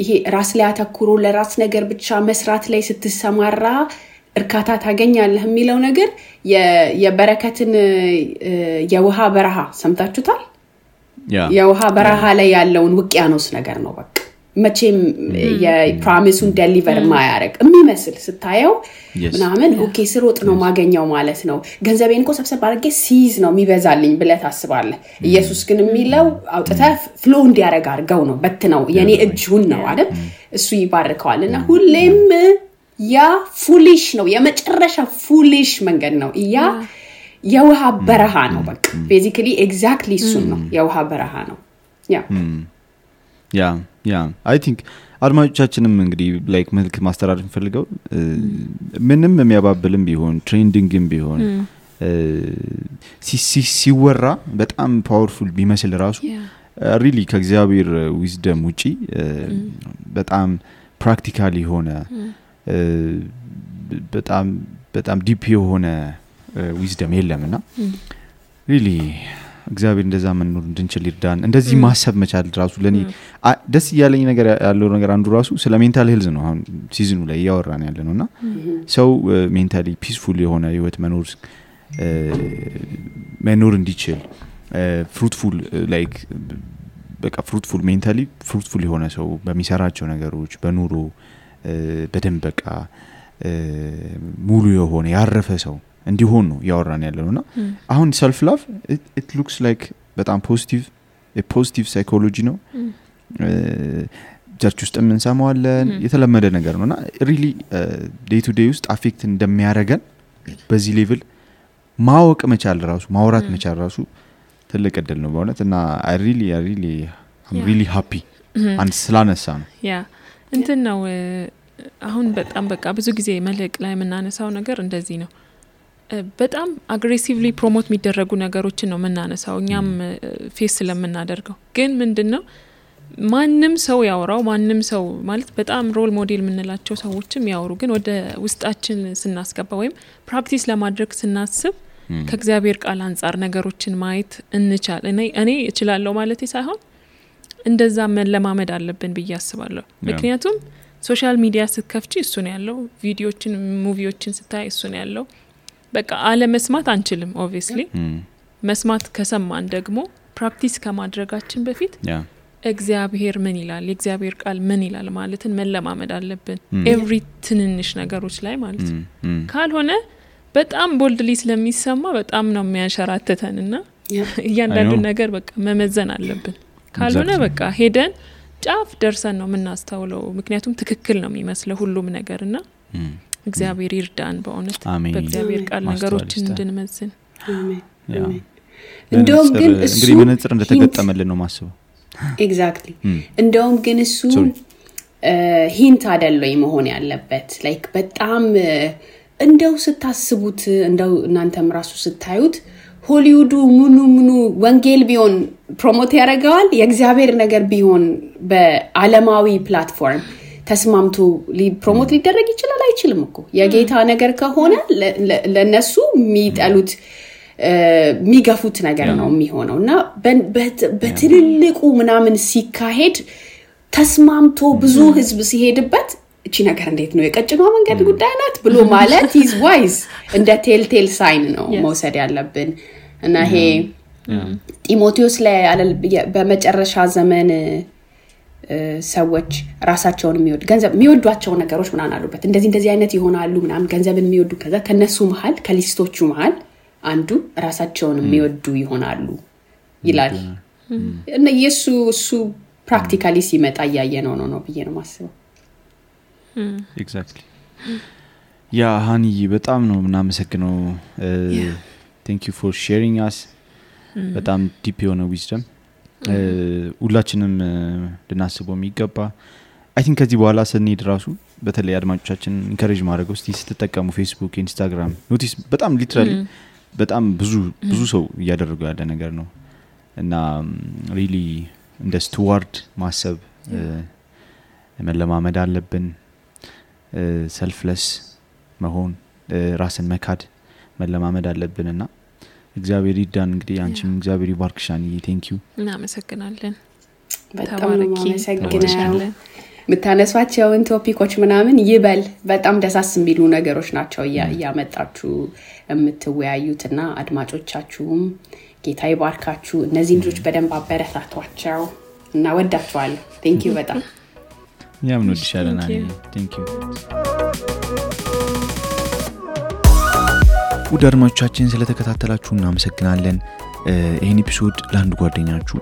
ይሄ ራስ ላይ አተኩሮ ለራስ ነገር ብቻ መስራት ላይ ስትሰማራ እርካታ ታገኛለህ የሚለው ነገር የበረከትን የውሃ በረሃ ሰምታችሁታል የውሃ በረሃ ላይ ያለውን ውቅያኖስ ነገር ነው በቃ መቼም የፕሮሚሱን ዴሊቨር ማያረግ የሚመስል ስታየው ምናምን ኦኬ ስሮጥ ነው ማገኛው ማለት ነው ገንዘቤን እኮ ሰብሰብ አድርጌ ሲዝ ነው የሚበዛልኝ ብለህ ታስባለህ ኢየሱስ ግን የሚለው አውጥተህ ፍሎ እንዲያረግ አርገው ነው በትነው የኔ እጁን ነው አይደል እሱ ይባርከዋልና ሁሌም ያ ፉሊሽ ነው የመጨረሻ ፉሊሽ መንገድ ነው ያ የውሃ በረሃ ነው በቃ ቤዚካሊ ኤግዛክትሊ እሱ ነው የውሃ በረሃ ነው ያ I think አድማጮቻችንም እንግዲህ ላይክ መልክ ማስተላለፍ ፈልገው ምንም የሚያባብልም ቢሆን ትሬንዲንግም ቢሆን ሲወራ በጣም ፓወርፉል ቢመስል ራሱ ሪሊ ከእግዚአብሔር ዊዝደም ውጪ በጣም ፕራክቲካሊ ሆነ በጣም ዲፕ የሆነ ዊዝደም የለምና ሪሊ እግዚአብሔር እንደዛ መኖር እንድንችል ይርዳን እንደዚህ ማሰብ መቻል ራሱ ለኔ ደስ ያለኝ ነገር ያለው ነገር አንዱ ራሱ ስለ ሜንታል ሄልዝ ነው አሁን ሲዝኑ ላይ ያወራን ያለነውና ሰው ሜንታሊ ፒስፉል የሆነ ህይወት መኖር እንዲችል ፍሩትፉል ላይክ በቃ ፍሩትፉል ሜንታሊ ፍሩትፉል የሆነ ሰው በሚሰራቸው ነገሮች በኑሮ በደንብ በቃ ሙሉ የሆነ ያረፈ ሰው እንዲሆን ነው ያወራን ያለነውና አሁን ሰልፍ ላቭ it looks like በጣም ፖዚቲቭ ሳይኮሎጂ ነው ቸርች ውስጥ እንሰማዋለን የተለመደ ነገር ነውና ሪሊ ዴይ ቱ ዴይ ውስጥ አፌክት እንደሚያረጋን በዚህ ሌቭል ማወቅ መቻል ራሱ ማውራት መቻል ራሱ ትልቅ እድል ነው በእውነትና I'm really happy አንድ ስላነሳ ነው እንትን ነው አሁን በጣም በቃ ብዙ ጊዜ መልክ ላይ የምናነሳው ነገር እንደዚህ ነው በጣም አግሬሲቭሊ ፕሮሞት የሚደረጉ ነገሮችን ነው የምናነሳው እኛም ፌስ ስለምናደርገው ግን ምንድነው ማንንም ሰው ያወራው ማንንም ሰው ማለት በጣም ሮል ሞዴል የምንላቸው ሰዎችም ያወሩ ግን ወደ ውስጣችን ስናስገባ ወይም ፕራክቲስ ለማድረግ ስናስብ ከእግዚአብሔር ቃል አንፃር ነገሮችን ማየት እንቻል እኔ እችላለሁ ማለት ሳይሆን እንደዛ መለማመድ አለብን ብዬ አስባለሁ ምክንያቱም ሶሻል ሚዲያ ስትከፍቺ እሱ ነው ያለው ቪዲዮችን ሙቪዎችን ስታይ እሱ ነው ያለው በቃ አለ መስማት አንችልም ኦብቪየስሊ መስማት ከሰማን ደግሞ ፕራክቲስ ከማድረጋችን በፊት እግዚአብሔር ምን ይላል የእግዚአብሔር ቃል ምን ይላል ማለትን መለማመድ አለብን ኤቭሪ ትንንሽ ነገሮች ላይ ማለት ካልሆነ በጣም ቦልድሊ ስለሚሰማ በጣም ነው የሚያሸራተተንና እያንዳንዱ ነገር በቃ መመዘን አለብን ካልሆነ በቃ ሄደን ጫፍ ደርሰን ነው የምናስተውለው ምክንያቱም ትክክል ነው የሚመስለው ሁሉም ነገርና እግዚአብሔር ይርዳን በእውነት በእግዚአብሔር ቃል ነገሮችን እንድንመዝን አሜን እንደውም ግን እሱ እንግዲህ መነጽር እንደተገጠመልን ነው ማስበው ኤግዛክትሊ እንደውም ግን እሱ ሂንት አይደለም መሆን ያለበት ላይክ በጣም እንደው ስታስቡት እንደው እናንተም ራሱ ስታዩት ሆሊውዱ ምኑ ወንጌል ቢሆን ፕሮሞት ያደርጋል የእግዚአብሔር ነገር ቢሆን በዓለማዊ ፕላትፎርም ተስማምቶ ፕሮሞት ሊደረግ ይችላል አይችልም እኮ የጌታ ነገር ከሆነ ለነሱ የሚጠሉት የሚገፉት ነገር ነው የሚሆነውና በትልልቁ ምናምን ሲካሄድ ተስማምቶ ብዙ ህዝብ ሲሄድበት እቺ ነገር እንዴት ነው የቀጭኗ መንገድ ጉዳይ ናት ብሎ ማለት is wise እንደ ቴል ሳይን ነው መውሰድ ያለብን እና ይሄ ጢሞቴዎስ ላይ በመጨረሻ ዘመን ሰዎች ራሳቸውን ገንዘብ የሚወዷቸው ነገሮች ምናን አሉበት እንደዚህ አይነት ይሆናሉ ምናምን ገንዘብን የሚወዱ ከዛ ከነሱ መሃል ከሊስቶቹ መሃል አንዱ ራሳቸውን የሚወዱ ይሆናሉ ይላል እና እሱ ፕራክቲካሊ ሲመጣ ያየነው ነው ብዬ ነው ማስበው ኤግዛክትሊ ያ ሃኒ በጣም ነው እናመሰግነው thank you for sharing us በጣም ዲፕ የሆነ ዊዝደም ሁላችንም ልናስበው የሚገባ I think ከዚህ በኋላ ስንሄድ ራሱ በተለይ አድማጮቻችን ኢንከሬጅ ማድረግ እስቲ ስትጠቀሙ ፌስቡክ ኢንስታግራም ኖቲስ በጣም ሊትራሊ በጣም ብዙ ሰው እያደረገው ያለ ነገር ነው እና ሪሊ እንደ ስቱዋርድ ማሰብ መለማመድ አለብን ሰልፍለስ መሆን ራስን መካድ መለማመድ አለብንና እግዚአብሔር ይርዳን እንግዲህ አንቺም እግዚአብሔር ይባርክሻን thank you እናመሰግናለን በጣም እናመሰግናለን ምታነሷቸውን ቶፒኮች ምናምን ይበል በጣም ደሳስ የሚሉ ነገሮች ናቸው ያመጣችሁ የምትወያዩትና አድማጮቻችሁም ጌታ ይባርካችሁ እነዚህ ልጆች በደንብ አበረታቷቸው እና ወዳችኋለሁ thank you በጣም እኛም እንወድሻለን አኒ ቴንክ ዩ ውድ አድማጮቻችን ስለተከታተላችሁ እናመሰግናለን ይሄን ኤፒሶድ ለአንድ ጓደኛችሁ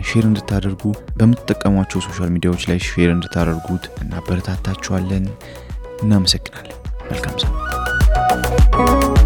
ሼር እንድታደርጉ በመጠቀሟቸው ሶሻል ሚዲያዎች ላይ ሼር እንድታደርጉት እናበረታታችኋለን እናመሰግናለን መልካም ሰዓት